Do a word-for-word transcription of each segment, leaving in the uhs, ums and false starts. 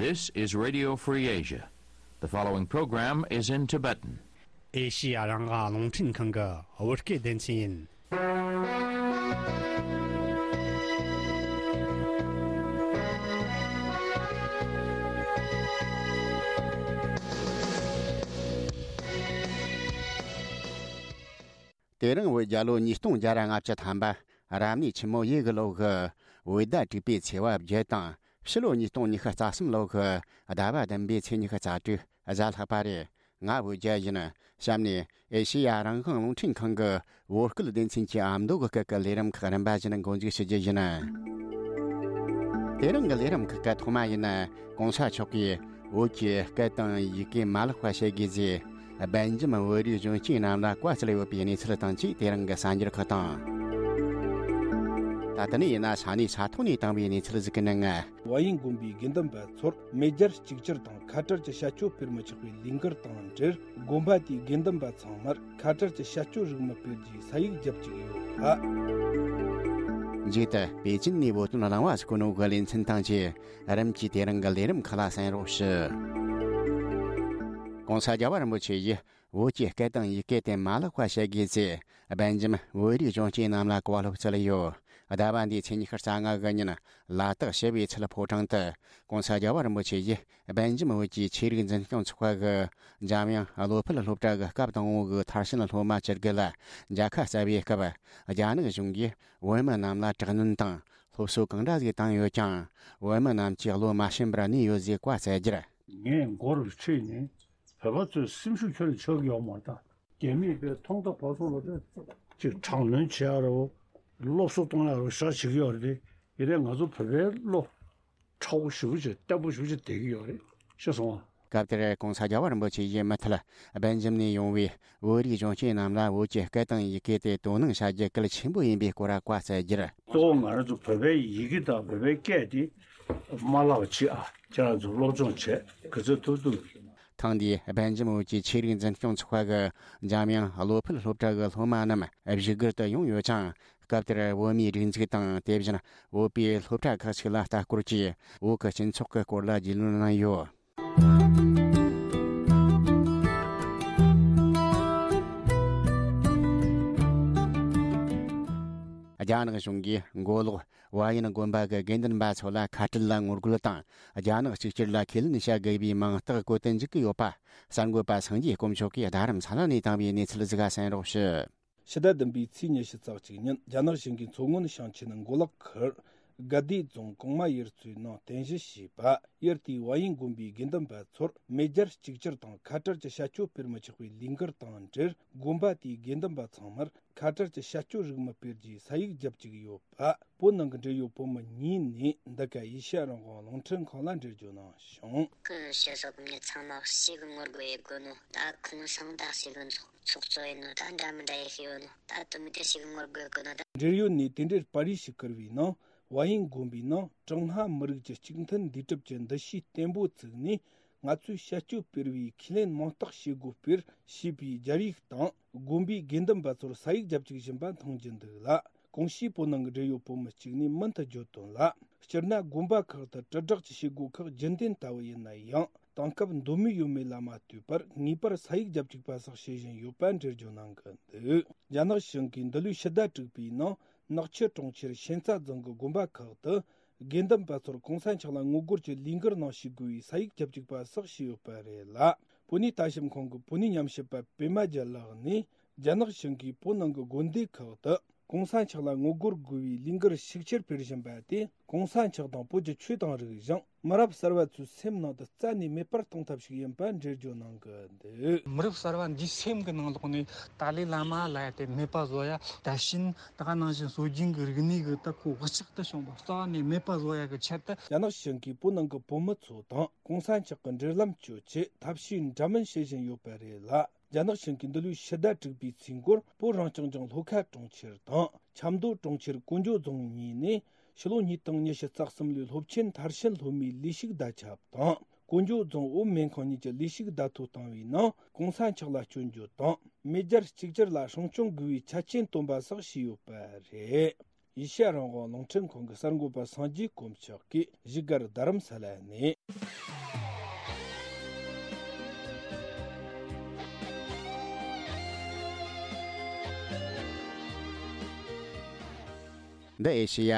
This is Radio Free Asia. The following program is in Tibetan. ཨེ་ཤི་ཡ་རང་དབང་རླུང་འཕྲིན་ཁང་གི་བོད་སྐད་སྡེ་ཚན་ཡིན། དེ་རིང་བོད་རྒྱལ་ལོ་ཉིས་སྟོང་བརྒྱ་ར་ལྔ་བཅུ་ཐམ་པ། རབ་གནས་ཆེན་མོ་ཡོས་གི་ལོ་གི་བོད་ཟླ་དྲུག་པའི་ཚེས་པ་བརྒྱད་དང་། ཕྱི་ལོ་ཉིས་སྟོང་ཉི་ཤུ་རྩ་གསུམ་ལོ་གི་ཟླ་བ་བདུན་པའི་ཚེས་ཉི་ཤུ་རྩ་དྲུག་གཟའ་ལྷག་པ་རེད། ང་བོད་རྒྱལ་ཡིན། གཤམ་ནས་ཨེ་ཤེ་ཡ་རང་དབང་རླུང་འཕྲིན་ཁང་གི་བོད་སྐད་སྡེ་ཚན་གྱི་ཨ་མདོ་གི་སྐད་ཀྱི་ལས་རིམ་ཁག་རིམ་པ་བཞིན་འགོ་འཛུགས་ཞུ་རྒྱུ་ཡིན། དེ་རིང་གི་ལས་རིམ་ཁག་གི་ཐོག་མ་ཡིན། གོང་ས་མཆོག་གིས་བོད་ཀྱི་སྐད་དང་ཡི་གེ་མ་བརླག་པ་བྱེད་དགོས་ཟེར། སྦེལ་ཇམ་བོད་རིགས་གཞོན་སྐྱེས་རྣམས་ལ་བཀའ་སྩལ་ཡོད་པའི་གནས་ཚུལ་དང་བཅས། དེ་རིང་གི་གསར་འགྱུར་ཁག་དང་། ད་ལྟ་ནས་ཡིན་ན་ས་གནས་ས་ཐོག་ནས་བཏང་བའི་གནས་ཚུལ་ཟིག་གི་ནང་ང་། ཝ་ཡིན་དགོན་པའི་དགེ་འདུན་པ་ཚོར་མེས་རྒྱལ་གཅིག་གྱུར་དང་ཁ་བྲལ་གྱི་བྱ་སྤྱོད་སྤེལ་མི་ཆོག་པའི་ལས་འགུལ་དང་འབྲེལ། དགོན་པ་དེའི་དགེ་འདུན་པ་ཚང་མར་ཁ་བྲལ་གྱི་བྱ་སྤྱོད་རིགས་མི་སྤེལ་རྒྱུའི་ས་ཡིག་རྒྱབ་བཅུག་ཡོད་པ། མཇུག་ཏུ་པེ་ཅིན་ནས་བོད་དོན་གླེང་བ་སྐུ་ནོ་གི་ལེ་ཚན་དང་བཅས་རིམ་གྱིས་དེ་རིང་གི་ལས་རིམ་ཁག་ལ་གསན་རོགས་ཞུ། གོང་ས་རྒྱལ་བ་རིན་པོ་ཆེ་ཡིས། བོད་ཀྱི་སྐད་དང་ཡི་གེ་དེ་མ་བརླག་པ་བྱེད་དགོས་ཚེ། སྦེལ་ཇམ་བོད་རིགས་གཞོན་སྐྱེས་རྣམས་ལ་བཀའ་སློབ་སྩལ་ཡོད། ཟླ་བ་འདིའི་ཚེས་ཉི་ཤུ་རྩ་ལྔ་གི་ཉིན་ལ་དྭགས་ཞི་བའི་ཚལ་ཕོ་བྲང་དུ་གོང་ས་རྒྱལ་བ་རིན་པོ་ཆེ་ཡིས་སྦེལ་ཇམ་བོད་ཀྱི་ཆོས་རིག་འཛིན་སྐྱོང་ཚོགས་པ་གི་འཇམ་དབྱངས་བློ་འཕེལ་སློབ་གྲྭ་གི་སྐབས་དང་པོ་གི་མཐར་ཕྱིན་སློབ་མ་བཅུ་དགུ་ལ་མཇལ་ཁ་བསྩལ་བའི་སྐབས། རྒྱ་ནག་གཞུང་གིས་བོད་མི་རྣམས་ལ་དྲག་གནོན་དང་སློབ་གསོ་གང་འདྲ་ཞིག་བཏང་ཡོད་ཀྱང་། བོད་མི་རྣམས་ཀྱིས་བློ་མ་ཞུམ་པར་གནས་ཡོད་ཅེས་བཀའ་སྩལ་རྒྱུར། ངས་མགོ་རུ་ཁྲིད་ནས། བོད་པ་ཚོས་སེམས་ཤུགས་ཁྱོན་ནས་ཆག་གི་ཡོད་མ་རེད་ད། རྒྱ་མིས་དཔེ་ཐོག་མཐའ་བར་གསུམ་ལ་དཔེ་ཅིག་དྲག་གནོན་བྱེད་ཡག་རེད་བོ། སློབ་གསོ་གཏོང་ཡག་རེད་བོ་ཞེ་དྲག་བྱེད་ཀྱི་ཡོད་རེད་དེ། ཡིན་ནའི་ང་ཚོ་བོད་པའི་བློ་ཁྲ་བོ་ཞེ་པོ་ཅིག་བརྟན་པོ་ཞེ་པོ་ཅིག་བསྡད་ཀྱི་ཡོད་རེད། ཤེས་སོང་ང་། སྐབས་དེར་གོང་ས་རྒྱལ་བ་རིན་པོ་ཆེ་ཡིས་མུ་མཐུད་སྦེལ་ཇམ་ནས་ཡོང་བའི་བོད་རིགས་གཞོན་སྐྱེས་རྣམས་ལ་བོད་ཀྱི་སྐད་དང་ཡི་གེ་དེ་དོ་སྣང་བྱ་རྒྱུ་གལ་ཆེན་པོ་ཡིན་པའི་སྐོར་བཀའ་སྩལ་རྒྱུར། གཙོ་བོ་ང་རང་ཚོ་བོད་པའི་ཡི་གེ་དང་བོད་པའི་སྐད་དེ་མ་བརླག་པ་བྱེད་ཨ། ཁྱེད་རང་ཚོ་སློབ་སྦྱོང་བྱས་ག་ཚོད་ཐུབ་ཐུབ། ཐེངས་འདིའི་སྦེལ་ཇམ་བོད་ཀྱི་ཆོས་རིག་འཛིན་སྐྱོང་ཚོགས་པ་གི་འཇམ་དབྱངས་བློ་འཕེལ་སློབ་གྲྭ་གི་སློབ་མ་རྣམས་བཞུགས་སྒར་དུ་ཡོང་ཡོད་ཅིང་། སྐབས་དེར་བོད་མིའི་སྒྲིག་འཛུགས་དང་། དེ་བཞིན་བོད་པའི་སློབ་གྲྭ་ཁག་ཅིག་ལ་ལྟ་སྐོར་གྱིས་བོད་ཀྱི་སྤྱི་ཚོགས་ཀྱི་སྐོར་ལ་རྒྱུས་ལོན་གནང་ཡོད། རྒྱ་ནག་གཞུང་གིས་མགོ་ལོག་ཝཱ་ཡིན་དགོན་པ་གི་དགེ་འདུན་པ་ཚོ་ལ་ཁ་བྲལ་ལ་ངོ་རྒོལ་དང་། རྒྱ་ནག་གཅིག་གྱུར་ལ་ཁས་ལེན་བྱ་དགོས་པའི་མིང་རྟགས་བཀོད་དུ་འཇུག་གི་ཡོད་པ། གསར་འགོད་པ་སངས་རྒྱས་དཀོན་མཆོག་གིས་རྡ་རམ་ས་ལ་ནས་བཏང་བའི་གནས་ཚུལ་ཟིག་ག་གསན་རོགས་ཞུ། ཕྱི་ཟླ་བདུན་པའི་ཚེས་ཉི་ཤུ་རྩ་གཅིག་ཉིན་རྒྱ་ནག་གཞུང་གིས་མཚོ་སྔོན་ཞིང་ཆེན་མགོ་ལོག་ཁུལ་དགའ་བདེ་རྫོང་གོང་མ་ཡུལ་ཚོའི་ནང་རྟེན་གཞི་བྱས་པ་ཡུལ་དེའི་ཝཱ་ཡིན་དགོན་པའི་དགེ་འདུན་པ་ཚོར་མེས་རྒྱལ་གཅིག་གྱུར་དང་ཁ་བྲལ་གྱི་བྱ་སྤྱོད་སྤེལ་མི་ཆོག་པའི་ལས་འགུལ་དང་འབྲེལ། དགོན་པ་དེའི་དགེ་འདུན་པ་ཚང་མར་ཁ་བྲལ་གྱི་བྱ་སྤྱོད་རིགས་མི་སྤེལ་རྒྱུའི་ས་ཡིག་རྒྱབ་བཅུག་ཡོད་པ། བོད་ནང་གི་འབྲེལ་ཡོད་བོད་མི་གཉིས་ནས་འདི་ག་ཨེ་ཤ་ཡ་རང་དབང་རླུང་འཕྲིན་ཁང་ལ་འགྲེལ་བརྗོད་གནང་བྱུང་། ཁོའི་སྤྱི་ཚོགས་མི་ཚང་མ་ཞེ་གི་ངོ་རྒོལ་ཡེད་དགོས་ནོ། ད་ཁོང་སང་ད་ཞེ་གི་ཚོགས་ཚོགས་གཙོ་ཡིན་ནོ། ད་འདྲ་མི་འདྲ་ཡེད་ཤེས་ཡོད་ནོ། ད་དུ་མི་དེ་ཞེ་གི་ངོ་རྒོལ་དགོས་ནོ་ད། འབྲེལ་ཡོད་ནས་དེ་འབྲེལ་པར་རིས་ཤིག་བསྐུར་བའི་ནང་། ཝཱ་ཡིན་དགོན་པའི་ནང་ཀྲུང་ཧྭ་མི་རིགས་ཀྱི་གཅིག་མཐུན་འདུས་གྲུབ་ཀྱི་འདུ་ཤེས་བརྟན་པོ་བཙུགས་ནས། ང་ཚོས་བྱ་སྤྱོད་སྤེལ་བའི་ཁས་ལེན་མིང་རྟགས་བྱེད་སྒོ་སྤེལ་ཞེས་པའི་སྦྱར་ཡིག་དང་། དགོན་པའི་དགེ་འདུན་པ་ཚོར་ས་ཡིག་རྒྱབ་བཅུག་བཞིན་པ་མཐོང་རྒྱུ་འདུག་ལ། གོང་ཞུས་བོད་ནང་གི་འབྲེལ་ཡོད་བོད་མི་གཅིག་ནས་མུ་མཐུད་བརྗོད་དོན་ལ། སྤྱིར་ན་དགོན་པ་ཁག་ཏུ་དྲིལ་བསྒྲགས་ཀྱི་བྱེད་སྒོ་ཁག་རྒྱུན་ལྡན་ལྟ་བུ་ཡིན་ན་ཡང་། དེང་སྐབས་འདོད་མོས་ཡོད་མེད་ལ་མ་ལྟོས་པར་ངེས་པར་ས་ཡིག་རྒྱབ་བཅུག་པ་སོགས་བྱེད་བཞིན་ཡོད་པ་འགྲེལ་བརྗོད་གནང་གི་འདུག་རྒྱ་ནག་གཞུང་གིས་འདི་ལོའི་ཕྱི་ཟླ་དྲུག་པའི་ནང་ནག་ཆུ་གྲོང་ཁྱེར་ཤན་རྩ་རྫོང་གི་དགོན་པ་ཁག་ཏུ་དགེ་འདུན་པ་ཚོར་གོང་ས་མཆོག་ལ་ངོ་རྒོལ་གྱི་ལས་འགུལ་ནང་ཞུགས་དགོས་པའི་ས་ཡིག་རྒྱབ་བཅུག་པ་སོགས་བྱས་ཡོད་པ་རེད་ལ། བོད་གནས་ལྟ་ཞིབ་ཁང་གི་བོད་གནས་ཉམས་ཞིབ་པ་པད་མ་རྒྱལ་ལགས་ནས། རྒྱ་ནག་གཞུང་གིས་བོད་ནང་གི་དགོན་སྡེ་ཁག་ཏུ་གོང་ས་མཆོག་ལ་ངོ་རྒོལ་དགོས་པའི་ལས་འགུལ་ཤུགས་ཆེར་སྤེལ་བཞིན་པ་དེ། གོང་ས་མཆོག་དང་བོད་ཀྱི་ཆོས་དང་རིག་གཞུང་། མི་རབས་གསར་བ་ཚོའི་སེམས་ནང་དུ་རྩ་ནས་མེད་པར་གཏོང་ཐབས་ཤིག་ཡིན་པ་འགྲེལ་བརྗོད་གནང་གི་འདུག་མི་རབས་གསར་བ་འདིའི་སེམས་ཀྱི་ནང་ལོགས་ནས་ཏཱ་ལའི་བླ་མ་ལབ་ཡ་དེ་མེད་པ་བཟོ་ཡ། ད་ཕྱིན་ད་ག་ནང་བཞིན་སྲོལ་རྒྱུན་གྱི་རིག་གནས་ཀྱི་ད་ཁོ་བག་ཆགས་དེ་བྱུང་བ་རྩ་བ་ནས་མེད་པ་བཟོ་ཡ་གི་ཆེད་དུ། རྒྱ་ནག་གཞུང་གིས་བོད་ནང་གི་བོད་མི་ཚོ་དང་གོང་ས་མཆོག་གི་འབྲེལ་ལམ་གཅོད་ཆེད་ཐབས་ཤེས་འདྲ་མིན་བྱེད་བཞིན་ཡོད་པ་རེད་ལ། རྒྱ་ནག་གཞུང་གིས་འདི་ལོའི་ཕྱི་ཟླ་དྲུག་པའི་ཚེས་འགོར་བོད་རང་སྐྱོང་ལྗོངས་ལྷོ་ཁ་གྲོང་ཁྱེར་དང་ཆབ་མདོ་གྲོང་ཁྱེར་ཀོང་ཇོ་རྫོང་གཉིས་ནས་ཕྱི་ལོ་ཉིས་སྟོང་ཉི་ཤུ་རྩ་གསུམ་ལོའི་སློབ་ཆེན་མཐར་ཕྱིན་སློབ་མའི་ལས་ཞུགས་བརྡ་ཁྱབ་དང་། ཀོང་ཇོ་རྫོང་བོད་སྨན་ཁང་གཉིས་ཀྱི་ལས་ཞུགས་བརྡ་ཐོ་བཏང་བའི་ནང་གོང་ས་མཆོག་ལ་སྐྱོན་བརྗོད་དང་མེས་རྒྱལ་གཅིག་གྱུར་ལ་སྲུང་སྐྱོང་དགོས་པའི་ཆ་རྐྱེན་བཏོན་པ་སོགས་བྱས་ཡོད་པ་རེད། ཨེ་ཤ་ཡ་རང་དབང་རླུང་འཕྲིན་ཁང་གི་གསར་འགོད་པ་སངས་རྒྱས་དཀོན་མཆོག་གིས་བཞུགས་སྒར་རྡ་རམ་ས་ལ་ནས། འདི་ཨེ་ཤེ་ཡ་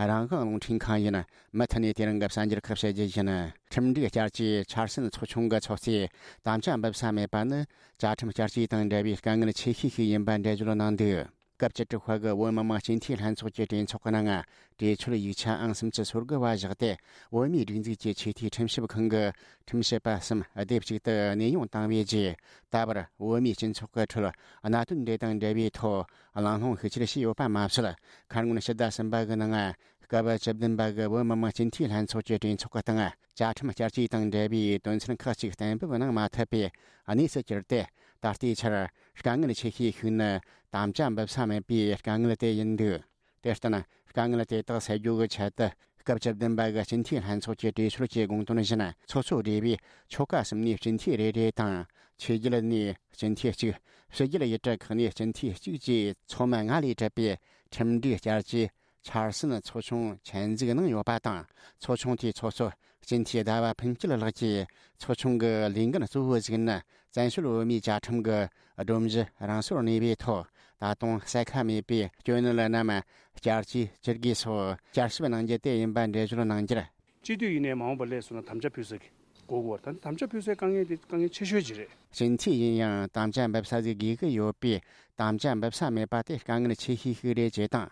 རང་དབང་རླུང་འཕྲིན་ཁང་ཡིན། མུ་མཐུད་ནས་དེ་རིང་གི་གསར་འགྱུར་ཁག་བཤད་རྒྱུ་ཡིན། ཁྲིམས་སྒྲིག་བསྐྱར་བཅོས་འཆར་ཟིན་ཚོགས་ཆུང་གི་ཚོགས་གཙོས་དམ་བཅའ་འབུལ་ས་མེད་པ་ནི། བཅའ་ཁྲིམས་བསྐྱར་བཅོས་དང་འབྲེལ་བའི་དཀའ་ངལ་ཆེ་ཤོས་ཤིག་ཡིན་པ་འགྲེལ་བརྗོད་གནང་འདུག་སྐབས་བཅུ་དྲུག་པ་གི་བོད་མི་མང་སྤྱི་འཐུས་ལྷན་ཚོགས་ཀྱི་གྲོས་ཚོགས་ཀྱི་ནང་། གྲོས་ཆོད་ཡིག་ཆ་ཨང་སུམ་ཅུ་སོ་དགུ་བ་བཞག་སྟེ། བོད་མིའི་སྒྲིག་འཛུགས་ཀྱི་ཆེས་མཐོའི་ཁྲིམས་ཞིབ་ཁང་གི་ཁྲིམས་ཞིབ་པ་གསུམ་སྡེབ་གཅིག་ཏུ་གནས་དབྱུང་བཏང་བའི་རྗེས། ད་བར་བོད་མིའི་སྤྱི་ཚོགས་ཀྱི་ཁྲོད་གནད་དོན་འདི་དང་འབྲེལ་བའི་ཐོག་གླེང་སློང་ཤུགས་ཆེར་བྱས་ཡོད་པ་མ་ཟད། ཁ་སྔོན་ཕྱི་ཟླ་གསུམ་པ་གི་ནང་། སྐབས་བཅུ་བདུན་པ་གི་བོད་མི་མང་སྤྱི་འཐུས་ལྷན་ཚོགས་ཀྱི་གྲོས་ཚོགས་ཀྱི་སྟེང་། བཅའ་ཁྲིམས་བསྐྱར་བཅོས་དང་འབྲེལ་བའི་དོན་ཚན་ཁག་ཅིག་གཏན་འབེབས་གནང་མ་ཐུབ་པའི་གནས་སུ་གྱུར་ཏེ། ད་ལྟའི་ཆར་དཀའ་ངལ་ཆེ་ཤོས་ཤིག་ནི་དམ་བཅའ་འབུལ་ས་མེད་པའི་དཀའ་ངལ་དེ་ཡིན་འདུག་དེར་བརྟེན། དཀའ་ངལ་དེ་དག་སེལ་རྒྱུ་གི་ཆེད་དུ། སྐབས་བཅུ་བདུན་པ་གི་སྤྱི་འཐུས་ལྷན་ཚོགས་ཀྱི་གྲོས་ཆོད་ཀྱི་དགོངས་དོན་བཞིན། ཚོགས་གཙོ་སྦྲེལ་བའི་ཆོལ་ཁ་གསུམ་ནས་སྤྱི་འཐུས་རེ་རེ་དང་། ཆོས་བརྒྱུད་ནས་སྤྱི་འཐུས་གཅིག་ཕྱི་རྒྱལ་ཡུལ་གྲུ་ཁག་ནས་སྤྱི་འཐུས་གཅིག་བཅས་ཚོགས་མི་ལྔ་ལས་གྲུབ་པའི་ཁྲིམས་སྒྲིག་བསྐྱར་བཅོས་འཆར་ཟིན་ཚོགས་ཆུང་ཆེད་འཛུགས་གནང་ཡོད་པ་དང་། ཚོགས་ཆུང་དེའི་ཚོགས་གཙོ་སྤྱི་འཐུས་ཟླ་བ་ཕུན་སྐྱིད་ལགས་ཀྱིས། ཚོགས་ཆུང་གི་ལས་འགན་གཙོ་བོ་ཞིག་ནི། བཙན་བྱོལ་བོད་མིའི་བཅའ་ཁྲིམས་ཀྱི་སྒྲོམ་གཞི་རང་སོར་གནས་པའི་ཐོག་ད་དུང་གསལ་ཁ་མེད་པའི་སྐྱོན་གནད་རྣམས་བསྐྱར་བཅོས་བྱེད་དགོས་སོགས་བསྐྱར་ཞིབ་གནང་རྒྱུ་དེ་ཡིན་པ་འགྲེལ་བརྗོད་གནང་རྒྱུར། སྤྱི་འཐུས་ཡིན་ནའི་མ་འོངས་པར་སླེབས་སོང་ན་དམ་བཅའ་ཕུལ་ས་གི་དགོས་ཀྱི་ཡོད་རེད། ད་དམ་བཅའ་ཕུལ་སའི་དཀའ་ངལ་དེ་དཀའ་ངལ་ཆེ་ཤོས་ཅིག་རེད། སྤྱི་འཐུས་ཡིན་ཡང་དམ་བཅའ་འབུལ་ས་ཟིག་དགོས་ཀྱི་ཡོད་པས། དམ་བཅའ་འབུལ་ས་མེད་པ་དེ་དཀའ་ངལ་ཆེ་ཤོས་ཤིག་རེད་ཅེས་དང་།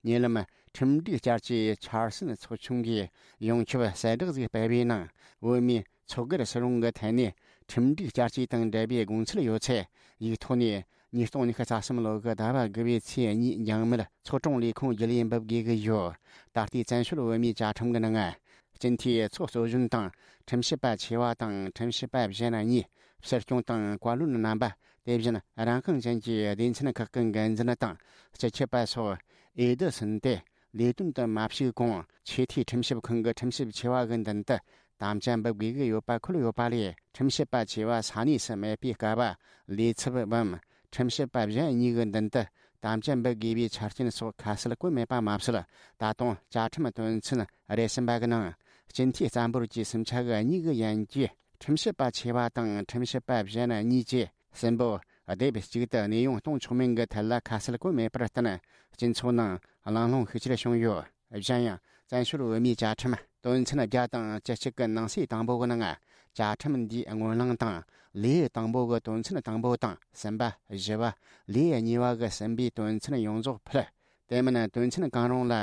ཉེ་ལམ་ཁྲིམས་སྒྲིག་བསྐྱར་བཅོས་འཆར་ཟིན་ཚོགས་ཆུང་གིས་ཡོངས་ཁྱབ་གསལ་བསྒྲགས་ཟིག་སྤེལ་བའི་ནང་། བོད་མིའི་ཚོགས་སྒེར་སུ་རུང་གི་ཐད་ནས་ཁྲིམས་སྒྲིག་བསྐྱར་བཅོས་དང་འབྲེལ་བའི་དགོངས་ཚུལ་ཡོད་ཚད། ཡིག་ཐོག་ནས་ཉིས་སྟོང་ཉི་ཤུ་རྩ་གསུམ་ལོ་གི་ཟླ་བ་དགུ་པའི་ཚེས་གཉིས་འཇང་མེལ་ཚོགས་དྲུང་ལས་ཁུངས་བརྒྱུད་ལས་འབུལ་དགོས་ཀྱི་ཡོད། ད་ལྟའི་བཙན་བྱོལ་བོད་མིའི་བཅའ་ཁྲིམས་ཀྱི་ནང་། སྤྱི་འཐུས་ཚོགས་གཙོ་གཞོན་དང་། ཁྲིམས་ཞིབ་པ་ཆེ་བ་དང་ཁྲིམས་ཞིབ་པ་གཞན་གཉིས། སྲིད་སྐྱོང་དང་བཀའ་བློན་རྣམ་པ། དེ་བཞིན་རང་དབང་ཅན་གྱི་སྡེ་ཚན་ཁག་གི་འགན་འཛིན་དང་སྤྱི་ཁྱབ་པ་སོགས་འོས་བསྡུ་ཟིན་ཏེ། ལས་དོན་དུ་མ་ཞུགས་གོང་། ཆེས་མཐོའི་ཁྲིམས་ཞིབ་ཁང་གི་ཁྲིམས་ཞིབ་ཆེ་བ་གི་མདུན་དུ་དམ་བཅའ་འབུལ་དགོས་ཀྱི་ཡོད་པ་འཁོད་ཡོད་པ་ལས། ཁྲིམས་ཞིབ་པ་ཆེ་བ་ས་གནས་སུ་མེད་པའི་སྐབས། ལས་ཚབ་བམ། ཁྲིམས་ཞིབ་པ་གཞན་གཉིས་ཀྱི་མདུན་དུ་དམ་བཅའ་འབུལ་དགོས་པའི་ཆ་རྐྱེན་སོགས་ཁ་གསལ་བཀོད་མེད་པ་མ་ཟད། ད་དུང་བཅའ་ཁྲིམས་དོན་ཚན་རེ་གསུམ་པ་གི་ནང་། སྤྱི་འཐུས་རྩ་འབོར་གྱི་སུམ་ཆ་གི་གཉིས་ཀྱི་ཡན་གྱི་ཁྲིམས་ཞིབ་པ་ཆེ་བ་དང་ཁྲིམས་ཞིབ་པ་གཞན་གཉིས་བཅས་གསུམ་པོ་སྡེབ་གཅིག་ཏུ་གནས་དབྱུང་གཏོང་ཆོག་མིན་གྱི་ཐད་ལ་ཁ་གསལ་བཀོད་མེད་པར་བརྟེན། སྤྱི་ཚོགས་ནང་གླེང་སློང་ཤུགས་ཆེར་བྱུང་ཡོད། གཞན་ཡང་། བཙན་བྱོལ་བོད་མིའི་བཅའ་ཁྲིམས་དོན་ཚན་བརྒྱ་དང་བཅུ་གཅིག་གི་ནང་གསེས་དང་པོ་གི་ནང་། བཅའ་ཁྲིམས་འདིའི་སྔོན་གླེང་དང་། ལེའུ་དང་པོ་གི་དོན་ཚན་དང་པོ་དང་གསུམ་པ། བཞི་བ། ལེའུ་གཉིས་པ་གི་གསུམ་པའི་དོན་ཚན་ཡོངས་རྫོགས་ཕུད། དེ་མིན་དོན་ཚན་གང་རུང་ལ་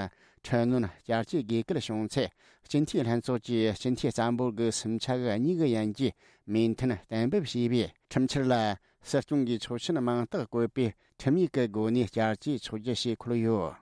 འཕྲི་སྣོན་བསྐྱར་བཅོས་དགོས་གལ་བྱུང་ཚེ། སྤྱི་འཐུས་ལྷན་ཚོགས་ཀྱིས་སྤྱི་འཐུས་རྩ་འབོར་གྱི་སུམ་ཆ་གི་གཉིས་ཀྱི་ཡན་གྱིས་མོས་མཐུན་གཏན་འབེབས་བྱས་པའི་ཁྲིམས་འཆར་ལ། སྲིད་སྐྱོང་གིས་ཆོག་མཆན་མིང་རྟགས་བཀོད་པའི་ཁྲིམས་ཡིག་གི་སྒོ་ནས་བསྐྱར་བཅོས་ཆོག་རྒྱུ་ཞེས་འཁོད་ཡོད།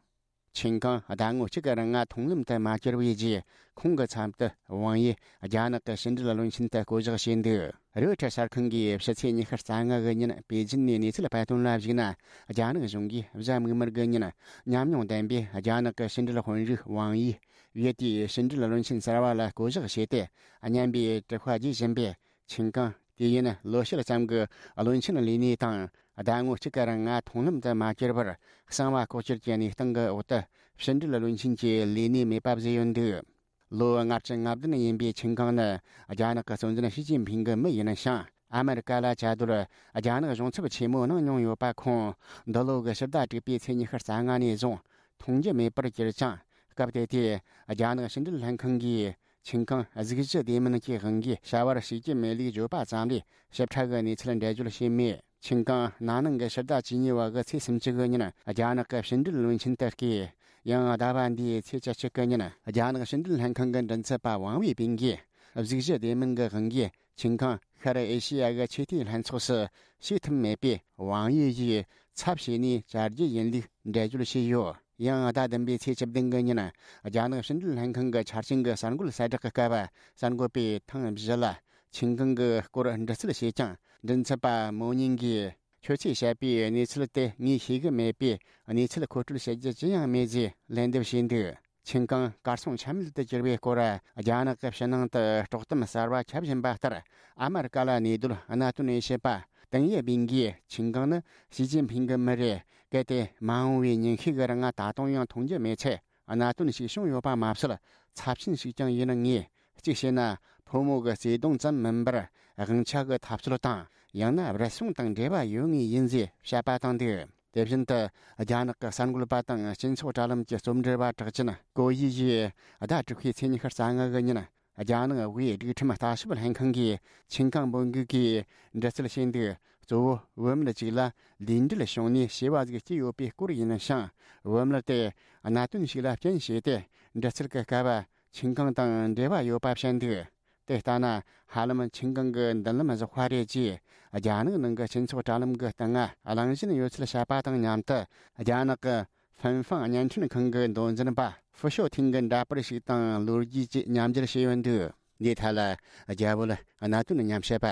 ཆིན་ཀང་ཟླ་ངོ་གཅིག་གི་རིང་མཐོང་ལམ་དུ་མ་གྱུར་བའི་རྗེས། ཁོང་གི་ཚབ་ཏུ་ཝང་ཡིས་རྒྱ་ནག་གི་ཕྱི་འབྲེལ་བློན་ཆེན་དུ་བསྐོ་གཞག་བྱས་འདུག་རོའི་ཊར་གསར་ཁང་གིས་ཕྱི་ཚེས་ཉི་ཤུ་རྩ་ལྔ་གི་ཉིན་པེ་ཅིན་ནས་གནས་ཚུལ་སྤེལ་དོན་ལ་གཞིགས་ན། རྒྱ་ནག་གཞུང་གིས་གཟའ་མིག་དམར་གྱི་ཉིན་ཉམས་མྱོང་ལྡན་པའི་རྒྱ་ནག་གི་ཕྱི་འབྲེལ་དཔོན་རིགས་ཝང་ཡིས་ཡུལ་དེའི་ཕྱི་འབྲེལ་བློན་ཆེན་གསར་བ་ལ་བསྐོ་གཞག་བྱས་ཏེ། སྙན་པའི་དྲི་བཀོད་བརྗོད་བཞིན་པའི་ཆིན་ཀང་། དུས་ཡུན་ལོ་ཕྱེད་ཙམ་གྱི་བློན་ཆེན་ལས་གནས་དང་། ཟླ་ངོ་གཅིག་གི་རིང་མཐོང་ལམ་དུ་མ་གྱུར་བར། གསང་བ་ལྐོག་གྱུར་གྱི་གནས་སྟངས་ཀྱི་འོག་ཏུ། ཕྱི་འབྲེལ་བློན་ཆེན་གྱི་ལས་གནས་མེད་པ་བཟོས་ཡོད་འདུག་ལོ་ལྔ་བཅུ་ང་བདུན་ཡིན་པའི་ཆིན་ཀང་ནི། རྒྱ་ནག་གི་གཙོ་འཛིན་ཞི་ཅིན་ཕིང་གི་མི་ཡིན་ཞིང་། ཨ་མེ་རི་ཀ་ལ་བཅའ་སྡོད་རྒྱ་ནག་གཞུང་ཚབ་ཆེན་མོ་གནང་མྱོང་ཡོད་པ་ཁོང་། འདི་ལོ་གི་ཕྱི་ཟླ་དྲུག་པའི་ཚེས་ཉི་ཤུ་རྩ་ལྔ་ནས་བཟུང་མཐོང་རྒྱུ་མེད་པར་གྱུར་ཅིང་། སྐབས་དེ་དུས། རྒྱ་ནག་ཕྱི་འབྲེལ་ལྷན་ཁང་གིས། ཆིན་ཀང་གཟུགས་གཞི་བདེ་མིན་གྱི་དབང་གིས་བྱ་བར་ཞུགས་ཀྱི་མེད་ལུགས་བརྗོད་པ་ཙམ་ལས་ཞིབ་ཕྲ་གི་གནས་ཚུལ་འགྲེལ་བརྗོད་བྱས་མེད། ཆིན་ཀང་ན་ནིང་གི་ཕྱི་ཟླ་བཅུ་གཉིས་པ་གི་ཚེས་སུམ་ཅུ་གི་ཉིན་རྒྱ་ནག་གི་ཕྱི་འབྲེལ་བློན་ཆེན་དུ་བསྐོས། ཡང་ཟླ་བ་འདིའི་ཚེས་བཅུ་གཅིག་གི་ཉིན་རྒྱ་ནག་ཕྱི་འབྲེལ་ལྷན་ཁང་གི་མགྲིན་ཚབ་པ་ཝང་ཝེ་པིན་གྱིས་གཟུགས་གཞི་བདེ་མིན་གྱི་དབང་གིས་ཆིན་ཀང་ཤར་ཨེ་ཤེ་ཡ་གི་ཆོས་དད་ལྷན་ཚོགས་སུ་ཞུགས་ཐུབ་མེད་པས། ཝང་ཡི་ཡིས་ཚབ་བྱས་ནས་བཅར་རྒྱུ་ཡིན་ལུགས་འགྲེལ་བརྗོད་བྱས་ཡོད། ཡང་ཟླ་བདུན་པའི་ཚེས་བཅུ་བདུན་གི་ཉིན། རྒྱ་ནག་ཕྱི་འབྲེལ་ལྷན་ཁང་གི་ཆ་རྐྱེན་གྱི་གསར་འགོད་གསལ་བསྒྲགས་ཀྱི་སྐབས། གསར་འགོད་པས་ཐེངས་བཞི་ལ་ཆིན་ཀང་གི་སྐོར་འདྲི་རྩད་བྱས་ཀྱང་། མགྲིན་ཚབ་པ་མོ་ཉིང་གིས། ཁྱོད་ཚོས་བཤད་པའི་གནས་ཚུལ་དེ་ངས་ཤེས་ཀྱི་མེད་པས། གནས་ཚུལ་མཁོ་སྤྲོད་བྱེད་རྒྱུ་ཅི་ཡང་མེད་ཅེས་ལན་འདེབས་བྱས་འདུག་ཆིན་ཀང་གར་སོང་ཆ་མེད་དུ་གྱུར་བའི་སྐོར། རྒྱ་ནག་གི་ཕྱི་ནང་དུ་དཀྲོག་གཏམ་གསར་བ་ཁྱབ་བཞིན་པ་ལྟར། ཨ་མེ་རི་ཀ་ལ་གནས་སྡོད་གནད་དོན་དབྱེ་ཞིབ་པ། ཏིང་ཡེ་སྦིན་གྱིས་ཆིན་ཀང་ནི་ཞི་ཅིན་ཕིང་གི་མི་རེད། གལ་ཏེ་མ་འོངས་པའི་ཉིན་ཤས་ཀྱི་རིང་ང་ད་དུང་ཡང་མཐོང་རྒྱུ་མེད་ཚེ། གནད་དོན་ཞིག་བྱུང་ཡོད་པ་མ་ཟད། ཚབས་ཆེན་ཞིག་ཀྱང་ཡིན་ངེས། གཅིག་བྱས་ན། ཕོ་མོ་གི་བརྩེ་དུང་ཙམ་མིན་པར། དབང་ཆ་གི་འཐབ་རྩོད་དང་། ཡང་ན་རུལ་སུངས་དང་འབྲེལ་བ་ཡོད་ངེས་ཡིན་ཞེས་དཔྱད་པ་བཏང་འདུག་དེ་བཞིན་དུ། རྒྱ་ནག་གི་གསར་འགོད་པ་དང་སྤྱི་ཚོགས་དྲ་ལམ་གྱི་རྩོམ་འབྲི་བ་གྲགས་ཅན་ཀོ་ཡི་ཡིས་ཟླ་དྲུག་པའི་ཚེས་ཉི་ཤུ་རྩ་ལྔ་གི་ཉིན། རྒྱ་ནག་དབུས་སྒྲིག་ཁྲིམས་ལྟ་ཞིབ་ལྷན་ཁང་གིས་ཆིན་ཀང་འབོད་འགུག་གིས་འདྲི་རྩད་བྱས་འདུག་གཙོ་བོ་བུད་མེད་ཅིག་ལ་ལུས་འབྲེལ་བྱུང་ནས་བྱིས་པ་ཟིག་སྐྱེས་ཡོད་པའི་སྐོར་ཡིན་ཞིང་། བུད་མེད་དེ་གནད་དོན་ཞིག་ལ་རྐྱེན་བྱས་ཏེ་འདྲི་རྩད་ཀྱི་སྐབས། ཆིན་ཀང་དང་འབྲེལ་བ་ཡོད་པ་བཤད་འདུག་དེ་ལྟ་ན། ཧ་ལམ་ཆིན་ཀང་གི་མདུན་ལམ་བཞག་པ་རེད་ཅེས། རྒྱ་ནག་ནང་གི་སྤྱི་ཚོགས་དྲ་ལམ་གྱི་སྟེང་ང་གླེང་བཞིན་ཡོད་ཚུལ་བཤད་པ་དང་མཉམ་དུ། རྒྱ་ནག་གི་ཧྥིན་ཧྥང་བརྙན་འཕྲིན་ཁང་གི་མདོ་འཛིན་པ་ཧྥུ་ཤོ་ཐིང་གི་འདྲ་པར་ཞིག་དང་ལོ་རྒྱུས་ཀྱི་མཉམ་སྦྱར་བྱས་ཡོད་འདུག་འདིའི་ཐད་ལ། རྒྱ་བོད་གནད་དོན་མཉམ་བཤད་པ་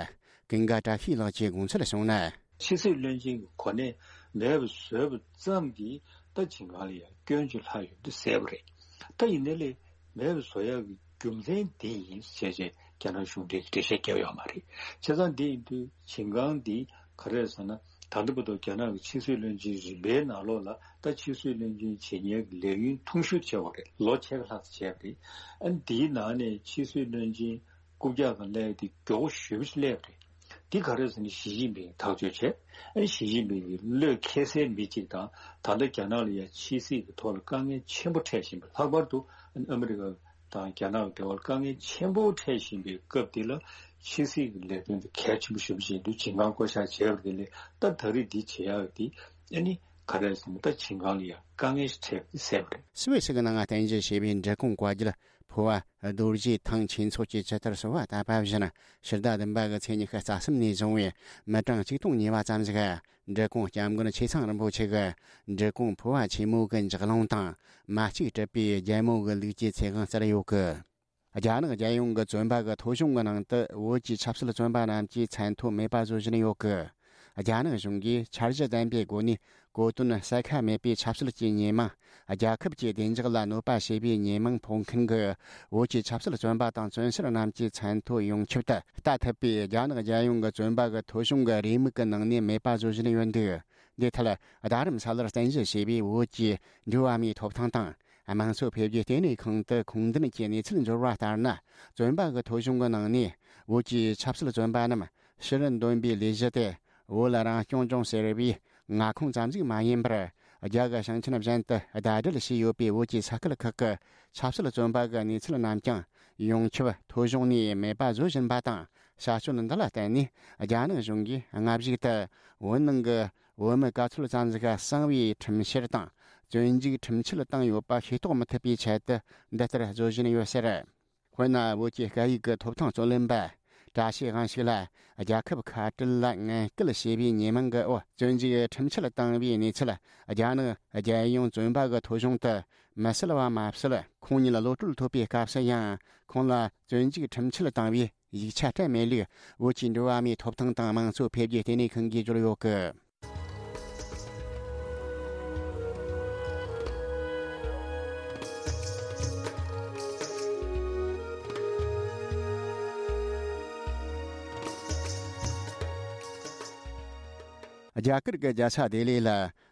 ཀུན་དགའ་བཀྲ་ཤིས་ལགས་ཀྱིས་དགོངས་ཚུལ་གསུངས་ན། ཕྱི་སྲིད་བློན་ཆེན་གྱི་གོ་གནས་མེད་པ་བཟོས་པ་ཙམ་གྱིས་ད་ཆིན་ཀང་ལ་ཡང་སྐྱོན་ཅིག་ལྷག་ཡོད་འདུག་ཟེར་བ་རེད། ད་ཡིན་ནའི་ལས་མེད་པ་བཟོ་ཡག་གི་རྒྱུ་མཚན་འདི་ཡིན་ཞེས་བྱས་རྒྱ་ནག་གཞུང་འབྲེལ་གྱི་འགྲེལ་བཤད་བརྒྱབ་ཡོད་མ་རེད། བྱས་ཙང་འདི་ཡིན་དུས་ཆིན་ཀང་འདི་ག་རེ་རེད་ཟེར་ན། ད་ལྟ་བར་དུ་རྒྱ་ནག་གི་ཕྱི་སྲིད་བློན་ཆེན་རིམ་པའི་ནང་ལོགས་ལ་ད་ཕྱི་སྲིད་བློན་ཆེན་བྱེད་མཁན་གྱི་ལས་ཡུན་ཐུང་ཤོས་བྱས་པ་རེད། ལོ་ཕྱེད་ཀ་ལྷག་ཙམ་བྱས་པ་རེད། ཨ་ནི་འདིའི་ནང་ནས་ཕྱི་སྲིད་བློན་ཆེན་རྐུབ་བཀྱག་སྒང་སླེབས་ཏེ་མགྱོགས་པོ་ཞེ་པོ་ཅིག་སླེབས་པ་རེད། འདི་ག་རེ་ཟེར་ན་ཞི་ཅིན་ཕིང་ཐག་གཅོད་བྱས། ཨ་ནི་ཞི་ཅིན་ཕིང་གི་བློས་འཁེལ་སའི་མི་གཅིག་དང་། ད་ལྟ་རྒྱ་ནག་ལ་ཡང་ཕྱི་སྲིད་ཀྱི་ཐོག་ལ་དཀའ་ངལ་ཆེན་པོ་འཕྲད་བཞིན་པ། ལྷག་པར་དུ་ཨ་ནི་ཨ་མི་རི་ཀ་དང་རྒྱ་ནག་གི་འབྲེལ་བར་དཀའ་ངལ་ཆེན་པོ་འཕྲད་བཞིན་པའི་སྐབས་འདི་ལ་ཕྱི་སྲིད་ཀྱི་ལས་དོན་དེ་གལ་ཆེན་པོ་ཞེ་པོ་ཅིག་འདུག་ཆིན་ཀང་བསྐོ་བཞག་བྱས་པ་དེ་ལས་ད་ད་རེས་འདི་བྱེད་ཡག་འདི་ཨ་ནི་ག་རེ་ཟེར་ན་ད་ཆིན་ཀང་ལ་ཡང་དཀའ་ངལ་ཞིག་འཕྲད་ཟེར་བ་རེད། སུད་སི་གི་ནང་རྟེན་གཞི་བྱས་པའི་འབྲི་གུང་བཀའ་བརྒྱུད་ཕོ་བ་རྡོ་རྗེ་ཐང་ཆོས་ཚོགས་ཀྱི་ཇི་ལྟར་གསོལ་བ་བཏབ་པ་བཞིན། ཕྱི་ཟླ་བདུན་པ་གི་ཚེས་ཉི་ཤུ་རྩ་གསུམ་ནས་བཟུང་བའི་མི་གྲངས་གཅིག་སྟོང་ཉེ་བ་ཙམ་ཞིག་འབྲི་གུང་སྐྱབས་མགོན་ཆེ་ཚང་རིན་པོ་ཆེ་གི་འབྲི་གུང་ཕོ་བ་ཆེན་མོ་གི་འཇག་རླུང་དང་། མ་གཅིག་གྲུབ་པའི་རྒྱལ་མོ་གི་ལུགས་ཀྱི་ཚེ་དབང་བསྩལ་ཡོད་གི། རྒྱ་ནག་རྒྱལ་ཡོངས་ཀྱི་བཙོན་པ་གི་ཐོ་གཞུང་གི་ནང་དུ་བོད་ཀྱི་ཆབ་སྲིད་བཙོན་པ་རྣམས་ཀྱི་མཚན་ཐོ་མེད་པ་བཟོ་བཞིན་ཡོད་གི། རྒྱ་ནག་གཞུང་གིས་འཆར་གཞི་ལྡན་པའི་སྒོ་ནས་གོ་དོན་གསལ་ཁ་མེད་པའི་ཆབ་སྲིད་ཀྱི་ཉེས་མིང་། རྒྱལ་ཁབ་ཀྱི་བདེ་འཇགས་ལ་གནོད་པ་བྱེད་པའི་ཉེས་མིང་ཕོག་མཁན་གྱི་བོད་ཀྱི་ཆབ་སྲིད་བཙོན་པ་དང་བཙོན་ཟུར་རྣམས་ཀྱི་མཚན་ཐོ་ཡོངས་ཁྱབ་ཏུ་ལྟ་ཐུབ་པའི་རྒྱ་ནག་རྒྱལ་ཡོངས་ཀྱི་བཙོན་པ་གི་ཐོ་གཞུང་གི་རེའུ་མིག་གི་ནང་ནས་མེད་པ་བཟོ་བཞིན་ཡོད་འདུག་འདིའི་ཐད་རྡ་རམ་ས་ལར་རྟེན་གཞི་བྱས་པའི་བོད་ཀྱི་འགྲོ་བ་མིའི་ཐོབ་ཐང་དང་། དམངས་གཙོ་འཕེལ་རྒྱས་ལྟེ་གནས་ཁང་དུ་ཁུངས་ལྡན་གྱི་གནས་ཚུལ་འབྱོར་བ་ལྟར་ན། བཙོན་པ་གི་ཐོ་གཞུང་གི་ནང་ནས་བོད་ཀྱི་ཆབ་སྲིད་བཙོན་པ་རྣམས་ཕྱིར་འདོན་པའི་ལས་གཞི་དེ་བོད་རང་སྐྱོང་ལྗོངས་ཟེར་བའི་མངའ་ཁོངས་ཙམ་ཞིག་མ་ཡིན་པར། རྒྱ་གར་ཞིང་ཆེན་གཞན་དུ་ཟླ་སྒྲིལ་བྱས་ཡོད་པའི་བོད་ཀྱི་ས་ཁུལ་ཁག་གི་ཆབ་སྲིད་བཙོན་པ་གི་གནས་ཚུལ་རྣམས་ཀྱང་ཡོངས་ཁྱབ་ཐོ་གཞུང་ནས་མེད་པ་བཟོ་བཞིན་པ་དང་། བྱ་སྤྱོད་འདི་ལ་བརྟེན་ནས་རྒྱ་ནག་གཞུང་གིས་སྔ་གཞུག་ཏུ་བོད་ནང་གི་བོད་མི་ག་ཚོད་ཙམ་ཞིག་གསང་བའི་ཁྲིམས་བཤེར་དང་བཙོན་འཇུག་ཁྲིམས་ཆད་བཏང་ཡོད་པ་ཤེས་རྟོགས་མི་ཐུབ་པའི་ཆེད་དུ་འདི་ལྟར་བཟོ་བཞིན་ཡོད་ཟེར། དཔེར་ན། བོད་ཀྱི་སྐད་ཡིག་གི་ཐོབ་ཐང་རྩོད་ལེན་པ་བཀྲ་ཤིས་དབང་ཕྱུག་ལ་རྒྱལ་ཁབ་ཁ་བྲལ་ལ་ངན་སྐུལ་བྱས་པའི་ཉེས་མིང་གི་འོག་བཙོན་འཇུག་ཁྲིམས་ཆད་བཏང་བའི་གནས་ཚུལ་རྒྱ་ནག་རྒྱལ་ཡོངས་བཙོན་པ་གི་ཐོ་གཞུང་དུ་མི་གསལ་བ་མ་ཟད། ཁོང་ཉིད་གློད་གྲོལ་ཐོབ་པའི་སྐབས་སུ་ཡང་ཁོང་ལ་བཙོན་འཇུག་ཁྲིམས་ཆད་བཏང་བའི་ཡིག་ཆ་སྤྲད་མེད་ལུགས་བོད་ཀྱི་འགྲོ་བ་མིའི་ཐོབ་ཐང་དང་དམངས་གཙོ་འཕེལ་རྒྱས་ལྟེ་གནས་ཁང་གིས་བརྗོད་ཡོད་གི། རྒྱ་གར་གྱི་རྒྱལ་ས་ལྡི་ལི་ལ་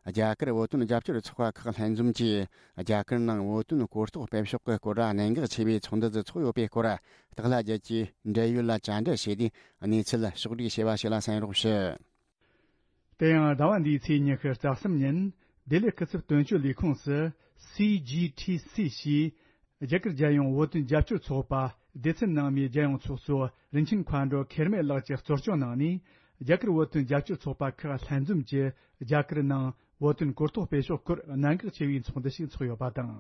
རྒྱ་གར་བོད་དོན་རྒྱབ་སྐྱོར་ཚོགས་པ་ཁག་ལྷན་འཛོམས་ཀྱིས་རྒྱ་གར་ནང་བོད་དོན་གོ་རྟོགས་སྤེལ་ཕྱོགས་ཀྱི་སྐོར་གནད་འགག་ཆེ་བའི་ཚོགས་འདུ་ཞིག་ཚོགས་ཡོད་པའི་སྐོར་སྟག་ལྷ་རྒྱལ་གྱིས་འབྲེལ་ཡོད་ལ་བཅར་འདྲི་བྱས་ཏེ་གནས་ཚུལ་ཕྱོགས་བསྒྲིགས་བྱས་པ་ཞིག་ལ་གསན་རོགས་ཞུ། དེ་ཡང་ཟླ་བ་འདིའི་ཚེས་ཉི་ཤུ་རྩ་གསུམ་ཉིན་ལྡི་ལི་སྐུ་ཚབ་དོན་གཅོད་ལས་ཁུངས་སུ་སི་ཇི་ཐི་སི་ཞེས་རྒྱ་གར་རྒྱལ་ཡོངས་བོད་དོན་རྒྱབ་སྐྱོར་ཚོགས་པ་སྡེ་ཚན་ནང་མའི་རྒྱལ་ཡོངས་ཚོགས་གཙོ་རིན་ཆེན་མཁའ་འགྲོ་ཁེར་མེ་ལགས་ཀྱིས་གཙོ་སྐྱོང་གནང་ནས་རྒྱ་གར་བོད་དོན་རྒྱབ་སྐྱོར་ཚོགས་པ་ཁག་ལྷན་འཛོམས་ཀྱིས་རྒྱ་གར་ནང་བོད་དོན་གོ་རྟོགས་སྤེལ་ཕྱོགས་སྐོར་གནད་འགག་ཆེ་བའི་ཚོགས་འདུ་ཞིག་ཚོགས་ཡོད་པ་དང་།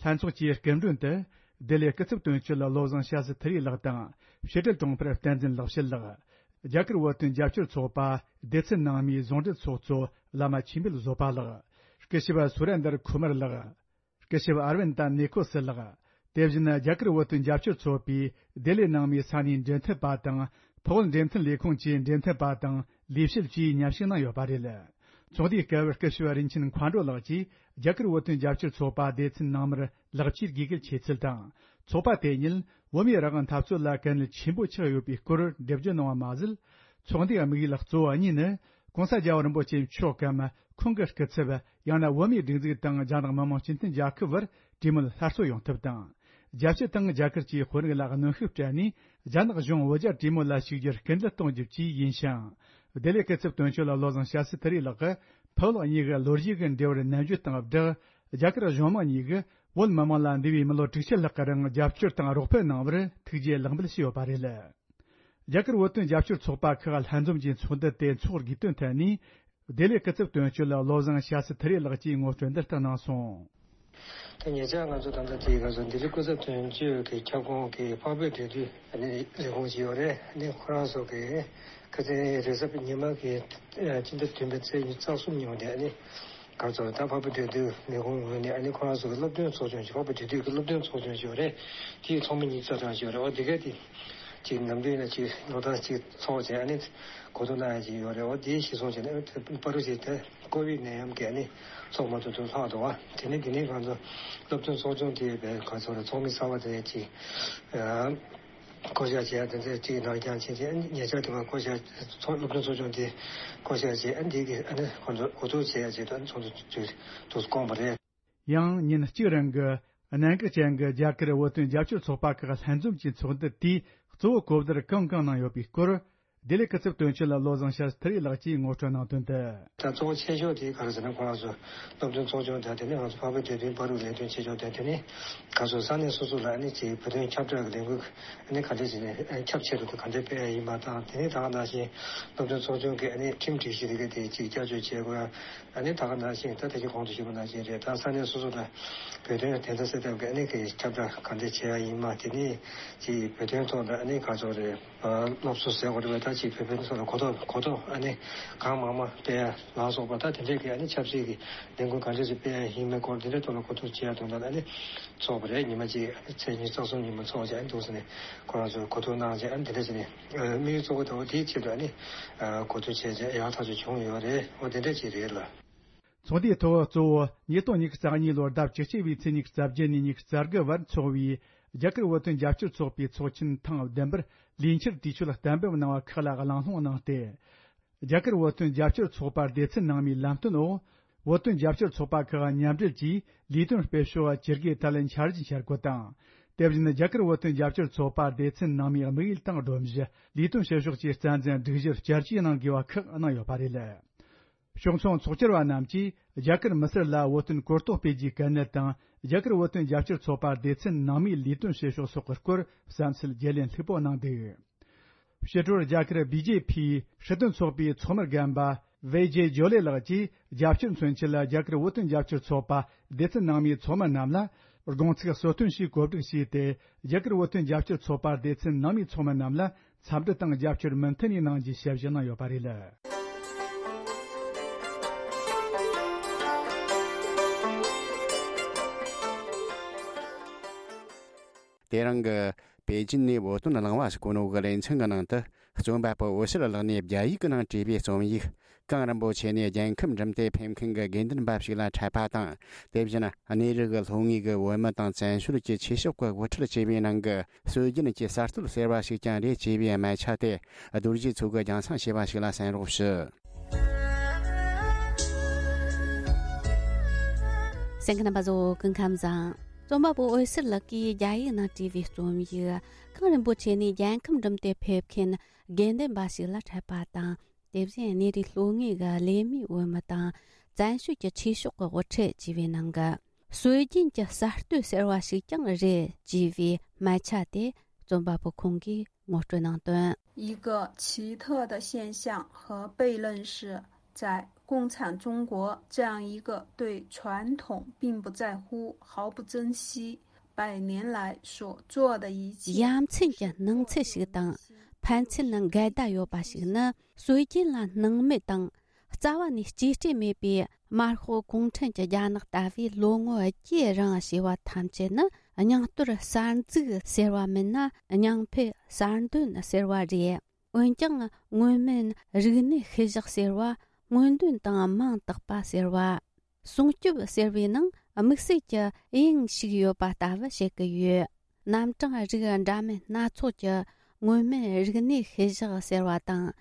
ལྷན་ཚོགས་ཀྱི་སྐུ་མགྲོན་དུ་ལྡི་ལི་སྐུ་ཚབ་དོན་གཅོད་བློ་བཟང་ཤཱ་སི་ཐི་རི་ལགས་དང་ཕྱི་དྲིལ་དྲུང་འཕར་བསྟན་འཛིན་ལེགས་བཤད་ལགས། རྒྱ་གར་བོད་དོན་རྒྱབ་སྐྱོར་ཚོགས་པ་སྡེ་ཚན་ནང་མའི་ཟུང་འབྲེལ་ཚོགས་གཙོ་བླ་མ་ཆོས་འཕེལ་བཟོད་པ་ལགས། སྐུ་ཞབས་སུ་རེན་དར་ཁུ་མར་ལགས། སྐུ་ཞབས་ཨར་ཝིན་ཏ་ནེ་ཁོ་སི་ལགས། དེ་བཞིན་རྒྱ་གར་བོད་དོན་རྒྱབ་སྐྱོར་ཚོགས་པའི་ལྡི་ལི་ནང་མའི་ས་གནས་འབྲེལ་མཐུད་པ་དང་། འཕགས་བོད་འབྲེལ་མཐུད་ལས་ཁུངས་ཀྱི་འབྲེལ་མཐུད་པ་དང་ལས་བྱེད་བཅས་མཉམ་ཞུགས་གནང་ཡོད་པ་རེད། ཚོགས་འདུའི་སྐབས་སྐུ་ཞབས་རིན་ཆེན་མཁའ་འགྲོ་ལགས་ཀྱིས་རྒྱ་གར་བོད་དོན་རྒྱབ་སྐྱོར་ཚོགས་པ་སྡེ་ཚན་ནང་མར་ལེགས་སྐྱེས་དགོས་གལ་ཆེ་ཚུལ་དང་། ཚོགས་པ་དེ་ཉིད་བོད་མིའི་རང་དབང་འཐབ་རྩོད་ལ་གལ་གནད་ཆེན་པོ་ཆགས་ཡོད་པའི་སྐོར་འགྲེལ་བརྗོད་གནང་བ་མ་ཟད། ཚོགས་འདུའི་དམིགས་ཡུལ་གཙོ་བོ་གཉིས་ནི། ྋགོང་ས་རྒྱལ་བ་རིན་པོ་ཆེ་མཆོག་གམ་ཁོང་གི་སྐུ་ཚབ་ཡང་ན་བོད་མིའི་སྒྲིག་འཛུགས་དང་རྒྱ་ནག་མི་དམངས་སྤྱི་མཐུན་རྒྱལ་ཁབ་བར་གྲོས་མོལ་སླར་གསོ་ཡོང་ཐབས་དང་། རྒྱལ་སྤྱི་དང་རྒྱ་གར་གྱི་དཔོན་རིགས་ལ་གནོན་ཤུགས་སྤྲད་ནས་རྒྱ་ནག་གཞུང་བོད་རྒྱ་གྲོས་མོལ་ལ་ཞུགས་རྒྱུར་སྐུལ་འདེད་གཏོང་རྒྱུ་བཅས་ཡིན་ཞིང་། བདེ་ལེགས་སྐུ་ཚབ་དོན་གཅོད་བློ་བཟང་སྐྱབས་སུ་ཐར་རི་ལགས་ཀྱིས་ཕུ་བོ་ལགས་གཉིས་ཀྱི་ལོ་རྒྱུས་ཀྱི་འབྲེལ་བར་ནན་བརྗོད་དང་སྦྲགས། རྒྱ་གར་གཞུང་མང་གཉིས་ཀྱིས་བོད་མི་དམངས་ལ་འདས་པའི་མི་ལོ་དྲུག་ཅུ་ལྷག་གི་རིང་རྒྱབ་སྐྱོར་དང་རོགས་ཕན་གནང་བར་ཐུགས་རྗེ་ལེགས་འབུལ་ཞུས་ཡོད་པ་རེད། རྒྱ་གར་བོད་དོན་རྒྱབ་སྐྱོར་ཚོགས་པ་ཁག་ལྷན་འཛོམས་ཀྱི་ཚོགས་འདུ་དེ་འཚོགས་དགོས་དོན་ཐད་ནས། བདེ་ལེགས་སྐུ་ཚབ་དོན་གཅོད་བློ་བཟང་སྐྱབས་སུ་ཐར་རི་ལགས་ཀྱིས་ངོ་སྤྲོད་འདི་ལྟར་གནང་སོང་། དེ་ཉེ་ཆར་ང་ཚོ་ད་ལྟ་དེའི་སྐབས་སུ་ལྡི་ལི་སྐུ་ཚབ་དོན་གཅོད་ཀྱི་ཁྱབ་ཁོངས་ཀྱི་འཕགས་བོད་འབྲེལ་མཐུད་ལས་ཁུངས་ཅིག་ཡོད་རེད། ཁོ་རང་ཚོ་གི་ཁ་སང་རེས་གཟའ་ཉི་མ་གི་སྤྱི་ཟླ་བདུན་པའི་ཚེས་ཉི་ཤུ་རྩ་གསུམ་ཉིན་མོ་དེ། ག་ཚོད་ད་འཕགས་བོད་འབྲེལ་མཐུད་ལས་ཁུངས་ངོས་ནས་ཨ་ནི་ཁོ་རང་ཚོ་གི་སློབ་སྟོན་ཚོགས་ཆུང་ཞིག་འཕགས་བོད་འབྲེལ་མཐུད་ཀྱི་སློབ་སྟོན་ཚོགས་ཆུང་ཞིག་ཡོད་རེད། དེའི་ཚོགས་མི་གཉིས་རྩ་གྲངས་ཞིག་ཡོད་རེད། འོ་དེ་ག་དེ་ཅིག་ནམ་རྒྱུན་ན་ཅིག་ལོ་ལྟར་ཅིག་ཚོགས་བྱས་ཨ་ནི་གོ་བསྡུར་གནང་ཡ་ཅིག་ཡོད་རེད། འོ་དེའི་གཞིར་བཟུང་བྱས་ནས་པ་རུ་ཅིག་དེ་ཀོ་བིད་ནད་ཡམས་ཀྱིས་ཨ་ནི་ཚོགས་མ་ཐུབ་དུས་ལྷག་འདུག་བ། དེ་ནས་དེ་ནས་ང་ཚོ་སློབ་སྟོན་ཚོགས་ཆུང་དེ་བས་ག་ཚོད་རེད། ཚོགས་མི་གསར་བ་དེ་ཅིག་བསྐོ་བཞག་བྱས་དེ་ཚོ་གཅིག་ནང་རྐྱང་ཕྱིན་ཆད་ཉེ་ཆར་དེ་བར་བསྐོ་བཞག་ཚོགས་སློབ་སྟོན་ཚོགས་ཆུང་དེ་བསྐོ་བཞག་བྱས། ཨ་འདི་གི་ཨ་ནི་ཁོང་ཚོ་འགོ་འཛུགས་བྱེད་ཡ་ཆེད་དུ་ཨ་ནི་ཚོགས་འདུ་དུ་བསྐོངས་པ་རེད། ཡང་ཉིན་གཅིག་རིང་གི་གནད་འགག་ཅན་གྱི་རྒྱ་གར་བོད་དོན་རྒྱབ་སྐྱོར་ཚོགས་པ་ཁག་ལྷན་འཛོམས་ཀྱི་ཚོགས་འདུ་དེས་གཙོ་བོ་གོ་བསྡུར་གང་གང་གནང་ཡོད་པའི་སྐོར། བདེ་ལེགས་སྐུ་ཚབ་དོན་གཅོད་བློ་བཟང་སྐྱབས་སུ་ཐར་རི་ལགས་ཀྱིས་ངོ་སྤྲོད་གནང་དོན་དུ། ད་གཙོ་བོ་ཆེ་ཤོས་དེ་ག་རེ་ཟེར་ན། ཁོ་རང་ཚོ་སློབ་སྟོན་ཚོགས་ཆུང་དང་དེ་ནས་ང་ཚོ་འཕགས་བོད་འབྲེལ་མཐུད་པ་རུ་ལས་དོན་ཆེ་ཕྱོགས་དང་དེ་ནས་ག་ཚོད་ས་གནས་སོ་སོ་ལ་ཨ་ནི་ཅིག་བོད་དོན་ཁྱབ་བསྒྲགས་ཀྱི་ལས་འགུལ་ཨ་ནི་ག་འདྲ་བྱས་ནས་ཁྱབ་ཆེ་རུ་དུ་ག་འདྲ་སྤེལ་ཡ་ཡིན་པ་དང་། དེ་ནས་ད་ག་ནང་བཞིན་སློབ་སྟོན་ཚོགས་ཆུང་གི་ཨ་ནི་ཁྲིམས་སྒྲིག་གཞི་དེ་ག་དེ་ཅིག་བསྐྱར་བཅོས་བྱེད་དགོས་ཡ། ཨ་ནི་ད་ག་ནང་བཞིན་ད་དེ་གི་གོང་དུ་ཞུས་པ་ནང་བཞིན་རེད། ད་ས་གནས་སོ་སོ་ལ་བོད་དོན་བདེན་མཐའ་གསལ་ཐབས་ཀྱི་ཨ་ནི་གི་ཁྱབ་བསྒྲགས་ག་འདྲ་བྱེད་ཡ་ཡིན་པ། དེ་ནས་ཅིག་བོད་དོན་ཐོག་ལ་ཨ་ནི་ག་ཚོད་རེད། སློབ་གསོ་ཟེར་དགོས་རེད་པས། ད་ཅིག་བོད་པའི་སོགས་ལ་གོ་རྟོགས་གོ་རྟོགས་ཨ་ནི་གང་མང་མང་སྤེལ་ཡ་ལ་སོགས་པ། ད་དེ་འདྲའི་གི་ཨ་ནི་ཆབ་སྲིད་ཀྱི་ལས་འགུལ་གང་འདྲ་ཞིག་སྤེལ་ཡ་ཡིན་མིན་སྐོར་དེ་འདྲའི་ཐོག་ལ་གོ་བསྡུར་བྱེད་ཡ་དོན་དག་ཨ་ནི་ཚོགས་པ་རེད། ཉི་མ་གཅིག་ཨ་ནི་ཚེས་ཉི་ཤུ་རྩ་གསུམ་ཉིན་མོ་ཚོགས་བྱས་ཨ་ནི་འདུག་ཟེར་ནས་ཁོ་རང་ཚོས་གོ་བསྡུར་གནང་བྱས། ཨ་ནི་དེ་འདྲ་བྱས་ནས་དམིགས་ཡུལ་གཙོ་བོ་དེ་འོ་དེའི་ཆེད་དུ་ཨ་ནི་གོ་བསྡུར་བྱས་བྱས་ཡག་ཐག་ཆོད་བྱུང་ཡོད་རེད། འོ་དེ་འདྲ་ཅིག་རེད་ལ། ཚོགས་འདུའི་ཐོག་གཙོ་བོ་ཉིས་སྟོང་ཉི་ཤུ་རྩ་གཉིས་ལོར་ཟླ་བཅུ་གཅིག་པའི་ཚེས་ཉི་ཤུ་རྩ་བརྒྱད་ནས་ཉི་ཤུ་རྩ་དགུ་བར་འཚོགས་པའི་རྒྱ་གར་བོད་དོན་རྒྱབ་སྐྱོར་ཚོགས་པའི་ཚོགས་ཆེན་ཐེངས་བདུན་པར་ལས་འཆར་དུས་ཚོད་གཏན་འབེབས་གནང་བ་ཁག་ལ་གླེང་སློང་གནང་སྟེ། རྒྱ་གར་བོད་དོན་རྒྱབ་སྐྱོར་ཚོགས་པ་སྡེ་ཚན་ནང་མིའི་ལམ་སྟོན་འོག་བོད་དོན་རྒྱབ་སྐྱོར་ཚོགས་པ་ཁག་མཉམ་འབྲེལ་གྱིས་ལས་དོན་སྤེལ་ཕྱོགས་ཇི་དགེ་ཐད་ལ་འཆར་གཞི་འཆར་འགོད་དང་། དེ་བཞིན་རྒྱ་གར་བོད་དོན་རྒྱབ་སྐྱོར་ཚོགས་པ་སྡེ་ཚན་ནང་མིའི་དམིགས་ཡུལ་དང་སྒྲོམ་གཞི། ལས་དོན་བྱེད་ཕྱོགས་ཀྱི་རྩ་འཛིན་སྒྲིག་གཞིར་བསྐྱར་བཅོས་གནང་དགོས་པ་ཁག་གནང་ཡོད་པ་རེད། ཕྱོགས་མཚུངས་ཚོགས་བཅར་བ་རྣམས་ཀྱིས་རྒྱ་གར་མི་སེར་ལ་བོད་དོན་གོ་རྟོགས་སྤེལ་རྒྱུའི་གལ་གནད་དང་། རྒྱ་གར་བོད་དོན་རྒྱབ་སྐྱོར་ཚོགས་པ་སྡེ་ཚན་ནང་མིའི་ལས་དོན་བྱེད་ཕྱོགས་སོགས་ཀྱི་སྐོར་བསམ་ཚུལ་བརྗེ་ལེན་ལྷུག་པོ་གནང་འདུག་ཕྱི་དྲོར་རྒྱ་གར་བི་ཇེ་ཕིའི་སྲིད་དོན་ཚོགས་པའི་ཚོགས་མི་རྒན་པ་ཝེ་ཇེ་ཇོ་ལེ་ལགས་ཀྱིས་རྒྱབ་སྐྱོར་མཚོན་ཆེད་ལ་རྒྱ་གར་བོད་དོན་རྒྱབ་སྐྱོར་ཚོགས་པ་སྡེ་ཚན་ནང་མིའི་ཚོགས་མི་རྣམས་ལ་དགོངས་ཚིག་གསོལ་སྟོན་ཞིག་གོ་སྒྲིག་བྱས་ཏེ། རྒྱ་གར་བོད་དོན་རྒྱབ་སྐྱོར་ཚོགས་པ་སྡེ་ཚན་ནང་མིའི་ཚོགས་མི་རྣམས་ལ་འཚམས་འདྲི་དང་རྒྱབ་སྐྱོར་མུ་མཐུད་ནས་གནང་རྒྱུའི་ཞལ་བཞེས་གནང་ཡོད་པ་རེད། དེ་རིང་གི་པེ་ཅིན་ནས་བོད་དོན་གླེང་བ་ཞིག་གོ་ནོ་གི་ལེ་ཚན་གྱི་ནང་དུ། རྩོམ་པ་པོ་འོད་ཟེར་ལགས་ནས་རྒྱ་ཡིག་གི་ནང་བྲིས་པའི་རྩོམ་ཡིག་གངས་རིན་པོ་ཆེ་ནས་རྒྱལ་ཁམས་འགྲིམ་སྟེ་ཕེབས་མཁན་གྱི་དགེ་འདུན་པ་ཞིག་ལ་འཕྲད་པ་དང་། དེ་བཞིན་གནས་རི་གི་ལྷོ་ངོས་ཀྱི་བོད་མི་དང་བཙན་བྱོལ་གྱི་ཆོས་ཕྱོགས་ཀྱི་དབུ་ཁྲིད་བཅས་པའི་ནང་གི་སྲོལ་རྒྱུན་གྱི་གསར་གཏོད་ཟེར་བ་ཞིག་ཀྱང་རེད་ཅེས་པའི་སྨད་ཆ་དེ་རྡོ་རྗེ་མཚོ་གིས་རྒྱང་སྲིང་བྱས་པ་ཞིག་ལ་གསན་རོགས་ཞུ། གསན་མཁན་རྣམ་པ་ཚོ་སྐུ་ཁམས་བཟང་། རྩོམ་པ་པོ་འོད་ཟེར་ལགས་ཀྱིས་རྒྱ་ཡིག་ནང་བྲིས་པའི་རྩོམ་ཡིག་གངས་རིན་པོ་ཆེ་ནས་རྒྱལ་ཁམས་འགྲིམ་སྟེ་ཕེབས་མཁན་དགེ་འདུན་པ་ཞིག་ལ་འཕྲད་པ་དང་། དེ་བཞིན་གནས་རི་ལྷོ་ངོས་ཀྱི་གླེ་མོའི་བོད་མི་དང་བཙན་བྱོལ་གྱི་ཆོས་ཕྱོགས་ཀྱི་དབུ་ཁྲིད་ཅེས་པའི་ནང་གི་སྲོལ་རྒྱུན་གྱི་གསར་གཏོད་ཟེར་བ་ཞིག་ཀྱང་རེད་ཅེས་པའི་སྨད་ཆ་དེ་རྩོམ་པ་པོ་ཁོང་གིས་ངོ་སྤྲོད་གནང་དོན། 一个奇特的现象和悖论是，在共产中国这样一个对传统并不在乎、毫不珍惜、百年来所做的一切 ཡ་མཚན་གྱི་སྣང་ཚུལ་ཞིག་དང་ཕན་ཚུན་འགལ་ཟླ་ཡོད་པ་ཞིག་ནི། སྲོལ་རྒྱུན་ལ་སྣང་མེད་དང་རྩ་བ་ནས་གཅེས་སྤྲས་མེད་པའི་དམར་ཤོག་གུང་ཁྲན་གྱི་རྒྱ་ནག་ལྟ་བུའི་ལོ་ངོ་བརྒྱའི་རིང་བྱས་པ་ཐམས་ཅད་ནི། རྙིང་གཏོར་གསར་འཛུགས་ཟེར་བ་མིན་ན་རྙིང་འཕེལ་གསར་འདོན་ཟེར་བ་རེད། འོན་ཀྱང་སྔོན་མིན་རིག་གནས་ཤུལ་བཞག་ཟེར་བ། སྔོན་འདོན་དང་མིང་བཏགས་པ་ཟེར་བ། སྲུང་སྐྱོབ་ཟེར་བའི་ནང་དམིགས་བསལ་གྱི་དབྱིངས་ཤིག་ཡོད་པ་ལྟ་བུ་བྱེད་ཀྱི་ཡོད། རྣམ་གྲངས་རིགས་འདྲ་མིན་སྣ་ཚོགས་ཀྱི་སྔོན་མིན་རིག་གནས་ཤུལ་བཞག་ཟེར་བ་དང་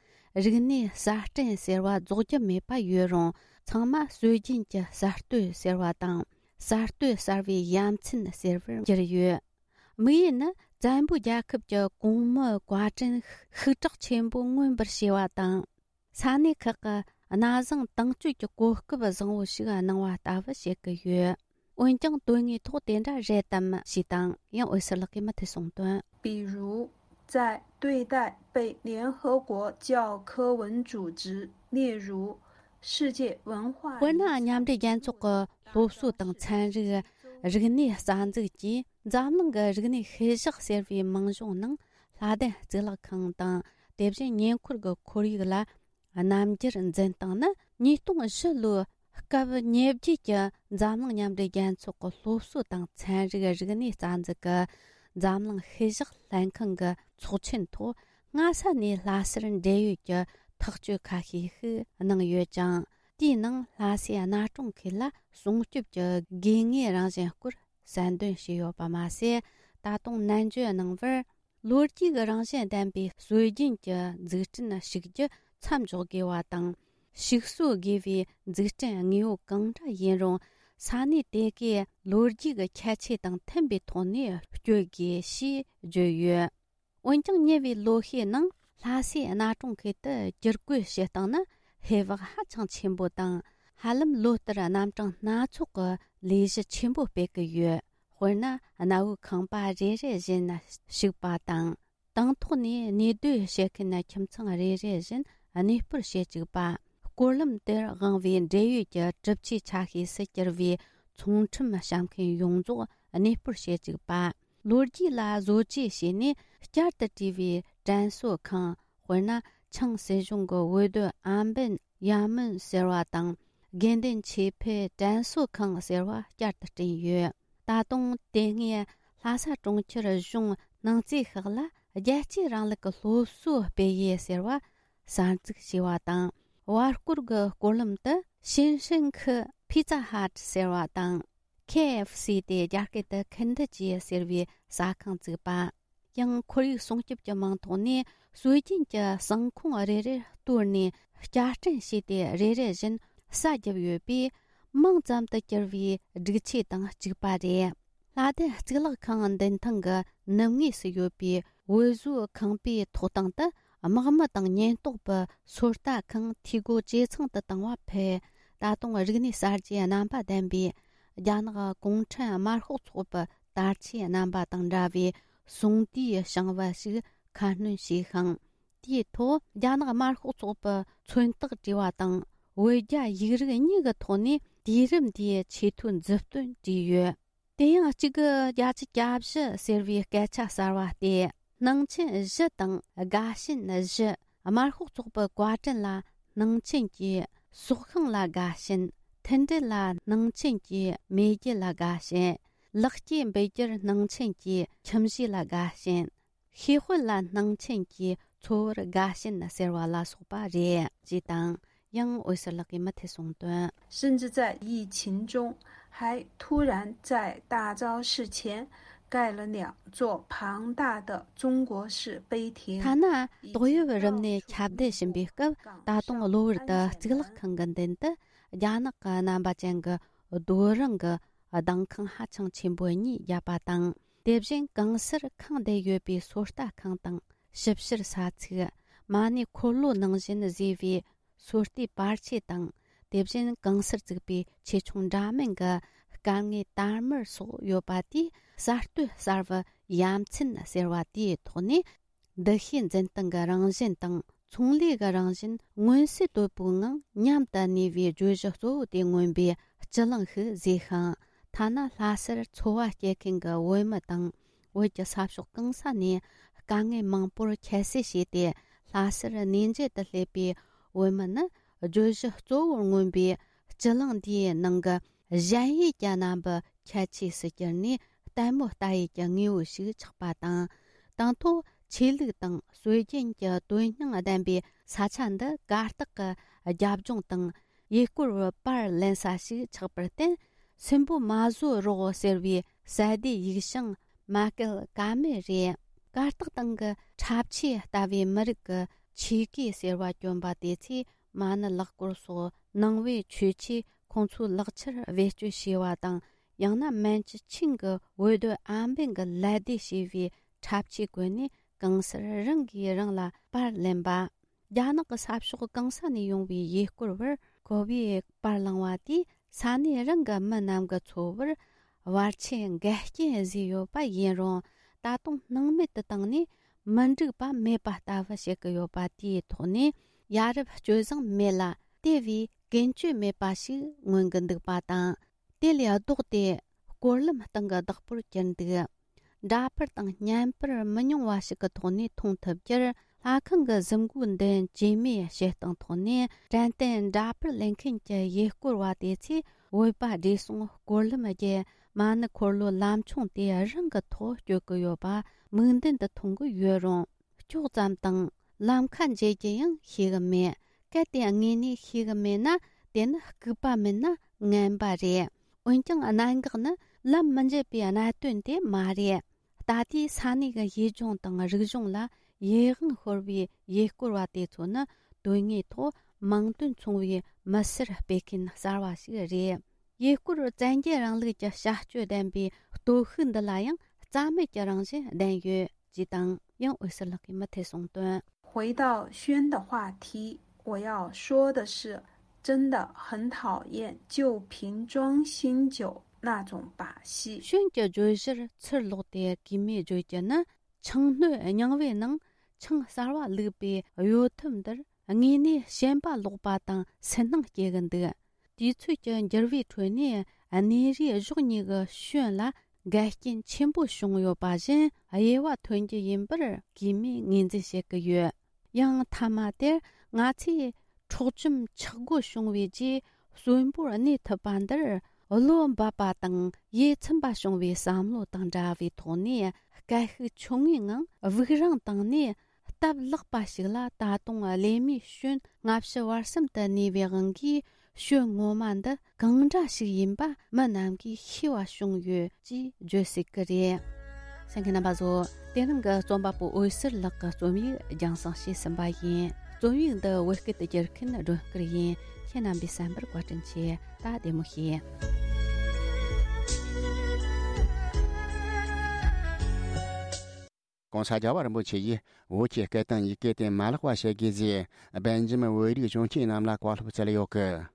རིག་གནས་གསར་སྐྲུན་ཟེར་བ་རྫོགས་རྒྱུ་མེད་པ་ཡོད་རུང་། ཚང་མ་སྲོལ་རྒྱུན་གྱི་གསར་གཏོད་ཟེར་བ་དང་། གསར་གཏོད་གསར་བའི་ཡ་མཚན་ཟེར་བར་གྱུར་ཡོད། དམིགས་ཡུལ་ནི། བཙན་པོའི་རྒྱལ་ཁབ་ཀྱི་གོང་མའི་བཀའ་དྲིན་ཤུགས་དྲག་ཆེན་པོ་མངོན་པར་བྱས་པ་དང་། ས་གནས་ཁག་གི་གནའ་བཟང་དྭངས་བཅུད་ཀྱི་གོ་སྐབས་བཟང་བོ་ཞིག་གནང་བ་ལྟ་བུ་བྱེད་ཀྱི་ཡོད། འོན་ཀྱང་དོན་དངོས་ཐོག་དེ་འདྲ་རེད་དམ་ཞེས་དང་། ཡང་འོད་ཟེར་ལགས་ཀྱིས་མུ་མཐུད་གསུངས་དོན། 比如，在对待被联合国教科文组织列入世界文化 དཔེར་ན། མཉམ་འབྲེལ་རྒྱལ་ཚོགས་ཀྱི་སློབ་གསོ་དང་ཚན་རིག་རིག་གནས་རྩ་འཛུགས་ཀྱིས་འཛམ་གླིང་གི་རིག་གནས་ཤུལ་བཞག་ཟེར་བའི་མིང་གཞུང་ནང་། ལྷ་ལྡན་གཙུག་ལག་ཁང་དང་། དེ་བཞིན་ཉེ་འཁོར་གྱི་ཁོར་ཡུག་ལ་རྣམ་འགྱུར་འཛིན་སྟངས་ནི། ཉིས་སྟོང་བཞི་ལོའི་སྐབས་ཉེ་བརྒྱད་ཀྱི་འཛམ་གླིང་མཉམ་འབྲེལ་རྒྱལ་ཚོགས་ཀྱི་སློབ་གསོ་དང་ཚན་རིག་རིག་གནས་རྩ་འཛུགས་ཀྱི་འཛམ་གླིང་ཤུལ་བཞག་ལྷན་ཁང་གི་ཚོགས་ཆེན་ཐོག་སྔ་ས་ནས་ལྷ་སར་འབྲེལ་ཡོད་ཀྱི་ཐག་གཅོད་ཁ་ཤས་ཤིག་གནང་ཡོད་ཅིང་། དེའི་ནང་ལྷ་སའི་གནའ་གྲོང་ཁུལ་ལ་སྲུང་སྐྱོབ་ཀྱི་དགོས་ངེས་རང་བཞིན་སྐོར་གསལ་འདོན་བྱས་ཡོད་པ་མ་ཟད། ད་དུང་ནན་བརྗོད་གནང་བར། ལོ་རྒྱུས་ཀྱི་རང་བཞིན་ལྡན་པའི་སྲོལ་རྒྱུན་གྱི་འཛུགས་སྐྲུན་ཞིག་རྒྱུ་མཚམས་འཇོག་དགོས་པ་དང་། ཞིག་གསོ་དགོས་པའི་འཛུགས་སྐྲུན་དངོས་པོ་གང་འདྲ་ཡིན་རུང་། ས་གནས་དེ་གའི་ལོ་རྒྱུས་ཀྱི་ཁྱད་ཆོས་དང་མཐུན་པའི་ཐོག་ནས་སྤྱོད་དགོས་ཞེས་བརྗོད་ཡོད། འོན་ཀྱང་། ཉེ་བའི་ལོ་ཤས་ནང་ལྷ་སའི་གནའ་གྲོང་ཁུལ་དུ་བསྒྱུར་བཀོད་བྱེད་སྟངས་ནི་ཧེ་བག་ཧ་ཅང་ཆེན་པོ་དང་། ཧ་ལམ་ལོ་ལྟར་རྣམ་གྲངས་སྣ་ཚོགས་ཀྱི་ལས་གཞི་ཆེན་པོ་སྤེལ་གྱི་ཡོད། དཔེར་ན། གནའ་བོའི་ཁང་པ་རེ་རེ་བཞིན་བཤིག་པ་དང་། དང་ཐོག་ནས་གནས་སྡོད་བྱེད་མཁན་ཁྱིམ་ཚང་རེ་རེ་བཞིན་གནས་སྤོར་བྱེད་བཅུག་པ། སྐོར་ལམ་དེར་དབང་བའི་འབྲེལ་ཡོད་ཀྱི་གྲུབ་ཆའི་ཆ་ཤས་སུ་གྱུར་བའི་ཚོང་ཁྲོམ་བཤམས་མཁན་ཡོངས་རྫོགས་གནས་སྤོར་བྱེད་བཅུག་པ། ལོ་རྒྱུས་ལ་བཟོ་བཅོས་བྱས་ནས་བསྐྱར་དུ་བྲིས་པའི་དྲན་གསོ་ཁང་། དཔེར་ན། ཆིང་སྲིད་གཞུང་གི་འོས་སྡོད་ཨན་པིན་ཡ་མིན་ཟེར་བ་དང་། དགེ་འདུན་ཆོས་འཕེལ་དྲན་གསོ་ཁང་ཟེར་བ་བསྐྱར་དུ་བསྐྲུན་ཡོད། ད་དུང་དེ་སྔའི་ལྷ་ས་གྲོང་ཁྱེར་གཞུང་ནང་རྩིས་ཁག་ལ་རྒྱལ་གཅེས་རིང་ལུགས་ཀྱི་སློབ་གསོ་སྤེལ་ཡུལ་ཟེར་བ་གསར་འཛུགས་བྱས་པ་དང་། བར་སྐོར་གྱི་སྐོར་ལམ་དུ་ཞིན་ཧྲིན་ཁི་ཕི་ཙ་ཧ་ཊ་ཟེར་བ་དང་། ཁེ་ཨེཕ་སི་སྟེ་རྒྱ་སྐད་དུ་ཁིན་ཐི་ཅི་ཟེར་བའི་ཟ་ཁང་བཙུགས་པ། ཡང་ཁོར་ཡུག་སྲུང་སྐྱོབ་ཀྱི་མིང་ཐོག་ནས་སྲོལ་རྒྱུན་གྱི་ཟངས་ཁུང་རེ་རེར་གཏོར་ནས་བསྐྱར་སྐྲུན་བྱས་ཏེ། རེ་རེ་བཞིན་ས་བརྒྱབ་ཡོད་པས། མིང་ཙམ་དུ་གྱུར་བའི་སྒྲིག་ཆས་དང་གཅིག་པ་རེད། ལྷ་ལྡན་གཙུག་ལག་ཁང་མདུན་ཐང་གི་ནུབ་ངོས་སུ་ཡོད་པའི་འོད་བཟོའི་ཁང་པའི་ཐོག་སྟེང་དུ། དམག་མི་དང་ཉེན་རྟོག་པའི་ཚོད་ལྟ་ཁང་འཐུས་སྒོ་ཇེ་ཚང་དུ་བཏང་བ་ཕུད། ད་དུང་རིག་གནས་གསར་བརྗེའི་རྣམ་པ་ལྡན་པའི་རྒྱ་ནག་གུང་ཁྲན་དམར་ཤོག་ཚོགས་པའི་དར་ཆའི་རྣམ་པ་དང་འདྲ་བའི་གསུང་དུས་བྱང་བ་ཞིག་ཁ་སྣོན་བྱས་ཤིང་། དེའི་ཐོག་རྒྱ་ནག་དམར་ཤོག་ཚོགས་པའི་མཚོན་རྟགས་བྲིས་པ་དང་། བོད་རྒྱ་ཡིག་རིགས་གཉིས་ཀྱི་ཐོག་ནས་དུས་རིམ་འདིའི་ཆེས་མཐོའི་མཛུབ་སྟོན་བྲིས་ཡོད། དེ་ཡང་གཅིག་གི་བརྒྱད་ཅུ་གྱ་བཞི་ཟེར་བའི་སྐད་ཆ་གསར་བ་སྟེ། སྣང་ཆེན་བཞི་དང་དགའ་ཞེན་བཞི། དམར་ཤོག་ཚོགས་པའི་བཀའ་དྲིན་ལ་སྣང་ཆེན་གྱིས། སྲོག་ཤིང་ལ་དགའ་ཞེན། མཐུན་སྒྲིལ་ལ་སྣང་ཆེན་གྱིས། མེས་རྒྱལ་ལ་དགའ་ཞེན། ལེགས་སྐྱེས་འབུལ་རྒྱུར་སྣང་ཆེན་གྱིས། ཁྱིམ་གཞིས་ལ་དགའ་ཞེན། ཤེས་དཔལ་ལ་སྣང་ཆེན་གྱིས། འཚོ་བར་དགའ་ཞེན་ཟེར་བ་ལ་སོགས་པ་རེད། ཅེས་དང་། ཡང་འོད་ཟེར་ལགས་ཀྱིས་མུ་མཐུད་གསུངས་དོན། 甚至在疫情中，还突然在大昭寺前盖了两座庞大的中国式碑亭。 ཐ་ན་ཏོག་དབྱིབས་རིམས་ནད་ཁྱབ་གདལ་བཞིན་པའི་སྐབས། ད་དུང་གློ་བུར་དུ་གཙུག་ལག་ཁང་གི་མདུན་དུ་རྒྱ་ནག་གི་རྣམ་པ་ཅན་གྱི་རྡོ་རིང་གི་གདན་ཁང་ཧ་ཅང་ཆེན་པོ་གཉིས་བརྒྱབ་པ་དང་། དེ་བཞིན་གང་སར་ཁེངས་བསྡད་ཡོད་པའི་ཚོད་ལྟ་ཁང་དང་ཞིབ་བཤེར་ས་ཚིགས། མ་ཎི་འཁོར་ལོ་ནང་བཞིན་བཟོས་པའི་ཚོད་ལྟའི་པར་ཆས་དང་། དེ་བཞིན་གང་སར་བཙུགས་པའི་ཆེ་ཆུང་འདྲ་མིན་གྱི་སྐར་ལྔའི་དར་དམར་སོགས་ཡོད་པ་དེས། གསར་གཏོད་གསར་བའི་ཡ་མཚན་ཟེར་བ་དེའི་ཐོག་ནས། འདུ་ཤེས་འཛིན་སྟངས་ཀྱི་རང་བཞིན་དང་། ཚོང་ལས་ཀྱི་རང་བཞིན་མངོན་གསལ་དོད་པོའི་ངང་མཉམ་དུ་གནས་པའི་བརྗོད་གཞི་གཙོ་བོ་དེ་མངོན་པའི་སྤྱི་གླིང་ཞིག་བཟོས་ཤིང་། ཐ་ན་ལྷ་སར་འཚོ་བ་སྐྱེལ་མཁན་གྱི་བོད་མི་དང་། བོད་ཀྱི་ས་ཕྱོགས་གང་ས་ནས་དཀའ་ངལ་མང་པོར་ཁྱད་བསད་བྱས་ཏེ། ལྷ་སར་གནས་མཇལ་དུ་སླེབས་པའི་བོད་མི་ནི། བརྗོད་གཞི་གཙོ་བོར་མངོན་པའི་སྤྱི་གླིང་འདིའི་ནང་གི་གཞལ་ཡས་ཀྱི་རྣམ་པའི་ཁྱད་ཆོས་སུ་གྱུར་ནས། ལྟད་མོ་ལྟ་ཡུལ་གྱི་དངོས་པོ་ཞིག་ཆགས་པ་དང་། དང་ཐོག་ཆོས་ལུགས་དང་སྲོལ་རྒྱུན་གྱི་དོན་སྙིང་ལྡན་པའི་ས་ཆ་འདི་གར་སྟེགས་ཀྱི་རྒྱབ་ལྗོངས་དང་། ཡུལ་སྐོར་བའི་པར་ལེན་ས་ཞིག་ཆགས་པར་བརྟེན། སུན་པོ་མ་བཟོ་རོགས་ཟེར་བའི་གསལ་བསྡུས་ཡིག་བྱང་མ་བཀལ་ཀ་མེད་རེད། གར་སྟེགས་སྟེང་གི་འཁྲབ་ཆས་ལྟ་བུའི་མི་རིགས་ཀྱི་ ཆོས་གོས་ཟེར་བ་གྱོན་པ་དེ་ཚོས་མ་ཎི་ལག་སྐོར་སོགས་ནང་པའི་ཆོས་ཆས་ཁོང་ཚོའི་ལག་ཆར་བེད་སྤྱོད་བྱས་པ་དང་། ཡང་ན་མན་ཇུ་ཆིང་གི་འོས་སྡོད་ཨམ་བན་གྱི་ལད་ཟློས་བྱས་པའི་འཁྲབ་ཆས་གོན་ནས་གང་སར་རང་གིས་རང་ལ་པར་ལེན་པ། རྒྱ་ནག་གི་ས་ཕྱོགས་གང་ས་ནས་ཡོང་བའི་ཡུལ་སྐོར་བར་ཁོ་བོས་པར་བླངས་པ་དེས་ས་གནས་རང་གི་མི་རྣམས་ཀྱི་འཚོ་བར་བར་ཆད་འགལ་རྐྱེན་བཟོས་ཡོད་པ་ཡིན་རུང་། ད་དུང་སྣང་མེད་དུ་བཏང་ནས་མི་འགྲིག་པ་མེད་པ་ལྟ་བུ་བྱེད་ཀྱི་ཡོད་པ་དེའི་ཐོག་ནས་ཡ་རབས་སྤྱོད་བཟང་མེད་ལ་དེ་བས་ཀུན་སྤྱོད་མེད་པ་ཞིག་མངོན་གྱི་འདུག་པ་དང་། དེ་ལས་ལྡོག་སྟེ་སྐོར་ལམ་སྟེང་གི་བདག་པོར་གྱུར་འདུག་འདྲ་པར་དང་བརྙན་པར་མི་ཉུང་བ་ཞིག་གི་ཐོག་ནས་མཐོང་ཐུབ་རྒྱུར། ལྷ་ཁང་གི་གཟིམ་འགོའི་མདུན་བྱེ་མའི་བྱེ་སྟངས་ཐོག་ནས་དྲན་རྟེན་འདྲ་པར་ལེན་མཁན་གྱི་ཡུལ་སྐོར་བ་དེ་ཚོས་བོད་པ་བགྲེས་སོང་སྐོར་ལམ་བརྒྱུད་མ་ཎི་འཁོར་ལོའི་ལམ་ཆུང་དེ་རང་གི་ཐོག་སྐྱོད་ཀྱི་ཡོད་པ་མིག་མདུན་དུ་མཐོང་གི་ཡོད་རུང་། ཀྱོག་ཙམ་དང་ལམ་ཁ་འབྱེད་རྒྱུ་ཡང་ཤེས་གི་མེད། གལ་ཏེ་དངོས་གནས་ཤེས་གི་མེད་ན་དེ་ནི་ལྐུགས་པ་མིན་ན་ངན་པ་རེད། འོན་ཀྱང་གནད་འགག་ནི་ལམ་མི་འབྱེད་པའི་གནད་དོན་དེ་མ་རེད། ད་ལྟའི་ས་གནས་ཀྱི་ཡུལ་ལྗོངས་དང་རིག་གཞུང་ལ་ཡིད་དབང་ཤོར་བའི་ཡུལ་སྐོར་བ་དེ་ཚོ་ནི་དོན་དངོས་ཐོག་མིང་དོན་མཚུངས་པའི་མི་སེར་སྤེལ་མཁན་གསར་བ་ཞིག་རེད། ཡུལ་སྐོར་བཙན་རྒྱལ་རིང་ལུགས་ཀྱི་བྱ་སྤྱོད་ལྡན་པའི་སྟོབས་ཤུགས་འདི་ལ་ཡང་རྩ་མེད་ཀྱི་རང་བཞིན་ལྡན་ཡོད་ཅེས་དང་། ཡང་འོད་ཟེར་ལགས་ཀྱིས་མུ་མཐུད་གསུངས་དོན། 回到宣的话题，我要说的是，真的很讨厌旧瓶装新酒那种把戏。 ཤོན་གྱི་བརྗོད་གཞིར་ཚུར་ལོག་སྟེ་གུས་མོས་བརྗོད་རྒྱུ་ནི། ཆང་སྣོད་རྙིང་བའི་ནང་ཆང་གསར་བ་བླུགས་པའི་གཡོ་ཐབས་འདིར་དངོས་གནས་ཞེན་པ་ལོག་པ་དང་སུན་སྣང་སྐྱེ་གི་འདུག་དུས་ཚོད་ཀྱི་འགྱུར་བའི་ཁྲོད་ནས་གནས་རིས་གཞོགས་གཉིས་ཀྱི་ཤོན་ལ་འགལ་རྐྱེན་ཆེན་པོ་བྱུང་ཡོད་པ་བཞིན་དབྱེ་བ་ཐོན་རྒྱུ་ཡིན་པར་གུས་མོས་ངོས་འཛིན་བྱེད་ཀྱི་ཡོད། ཡང་མཐའ་མ་དེར་ང་ཚོས་འཕྲོག་བཅོམ་ཆག་སྒོ་བྱུང་བའི་རྗེས་གསོན་པོར་གནས་ཐུབ་པ་འདིར་བློ་འབབ་པ་དང་ཡིད་ཚིམ་པ་བྱུང་བའི་བསམ་བློ་དང་འདྲ་བའི་ཐོག་ནས་སྐད་ཤུགས་ཆུང་ངུའི་ངང་དབུགས་རིང་བཏང་ནས། སྟབས་ལེགས་པ་ཞིག་ལ་ད་དུང་བླ་མའི་ཤོན་སྔ་ཕྱི་བར་གསུམ་དུ་གནས་པའི་དབང་གིས་ཤོན་ངོ་མ་འདི་གང་འདྲ་ཞིག་ཡིན་པ་མི་རྣམས་ཀྱིས་ཤེས་པ་བྱུང་ཡོད་ཅེས་བརྗོད་སྲིད་ཀྱི་རེད། གསན་མཁན་རྣམ་པ་ཚོ། དེ་རིང་གི་རྩོམ་པ་པོ་འོད་ཟེར་ལགས་ཀྱི་རྩོམ་ཡིག་རྒྱང་སྲིང་བྱས་ཟིན་པ་ཡིན། རྩོམ་ཡིག་འདི་བོད་སྐད་དུ་བསྒྱུར་མཁན་སྒྲོན་སྐུར་ཡིན། ཁྱེད་རྣམ་པས་གསན་པར་བཀའ་དྲིན་ཆེ། ད་བདེ་མོ་བྱོས། ༸གོང་ས་རྒྱལ་བ་རིན་པོ་ཆེ་ཡིས་བོད་ཀྱི་སྐད་དང་ཡི་གེ་དེ་མ་བརླག་པ་བྱེད་དགོས་ཞེས་སྦེལ་ཇམ་བོད་རིགས་གཞོན་སྐྱེས་རྣམས་ལ་བཀའ་སློབ་སྩལ་ཡོད་གི།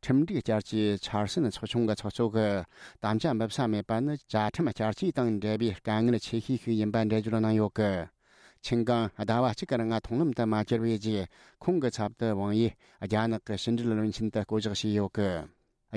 ཁྲིམས་སྒྲིག་བསྐྱར་བཅོས་འཆར་ཟིན་ཚོགས་ཆུང་གི་ཚོགས་གཙོ་གིས་དམ་བཅའ་འབུལ་ས་མེད་པ་ནི་བཅའ་ཁྲིམས་བསྐྱར་བཅོས་དང་འབྲེལ་བའི་དཀའ་ངལ་ཆེ་ཤོས་ཤིག་ཡིན་པ་འགྲེལ་བརྗོད་གནང་ཡོད་གི། ཆིན་ཀང་ཟླ་བ་གཅིག་གི་རིང་མཐོང་ལམ་དུ་མ་གྱུར་བའི་རྗེས། ཁོང་གི་ཚབ་ཏུ་ཝང་ཡིས་རྒྱ་ནག་གི་ཕྱི་འབྲེལ་བློན་ཆེན་དུ་བསྐོ་གཞག་བྱས་ཡོད་གི།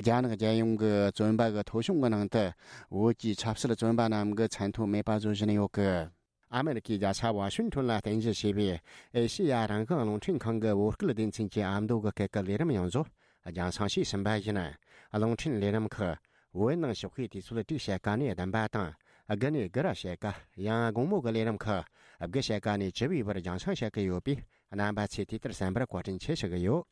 རྒྱ་ནག་རྒྱལ་ཡོངས་ཀྱི་བཙོན་པ་གི་ཐོ་གཞུང་གི་ནང་དུ་བོད་ཀྱི་ཆབ་སྲིད་བཙོན་པ་རྣམས་ཀྱི་མཚན་ཐོ་མེད་པ་བཟོ་བཞིན་ཡོད་གི། ཨ་མེ་རི་ཁའི་རྒྱལ་ས་ཝ་ཤིང་ཊོན་ལ་རྟེན་གཞི་བྱས་པའི་ཨེ་ཤེ་ཡ་རང་དབང་རླུང་འཕྲིན་ཁང་གི་བོད་སྐད་སྡེ་ཚན་གྱི་ཨ་མདོ་གི་སྐད་ཀྱི་ལས་རིམ་ཡང་བཟོ་རྒྱང་སྲིང་བྱས་ཟིན་པ་ཡིན། རླུང་འཕྲིན་ལས་རིམ་ཁག་བོད་ནང་ཞོགས་ཀའི་དུས་ཚོད་དྲུག་ཕྱེད་ཀ་ནས་བདུན་པ་དང་དགུ་ནས་དགུ་ར་ཕྱེད་ཀ། ཡང་དགོང་མོ་གི་ལས་རིམ་ཁག་དགུ་ཕྱེད་ཀ་ནས་བཅུ་པའི་བར་རྒྱང་སྲིང་བྱེད་ཀྱི་ཡོད་པས། རྣམ་པ་ཚོས་དེ་ལྟར་གསན་པར་བཀའ་དྲིན་ཆེ་ཞུ་གི་ཡོད།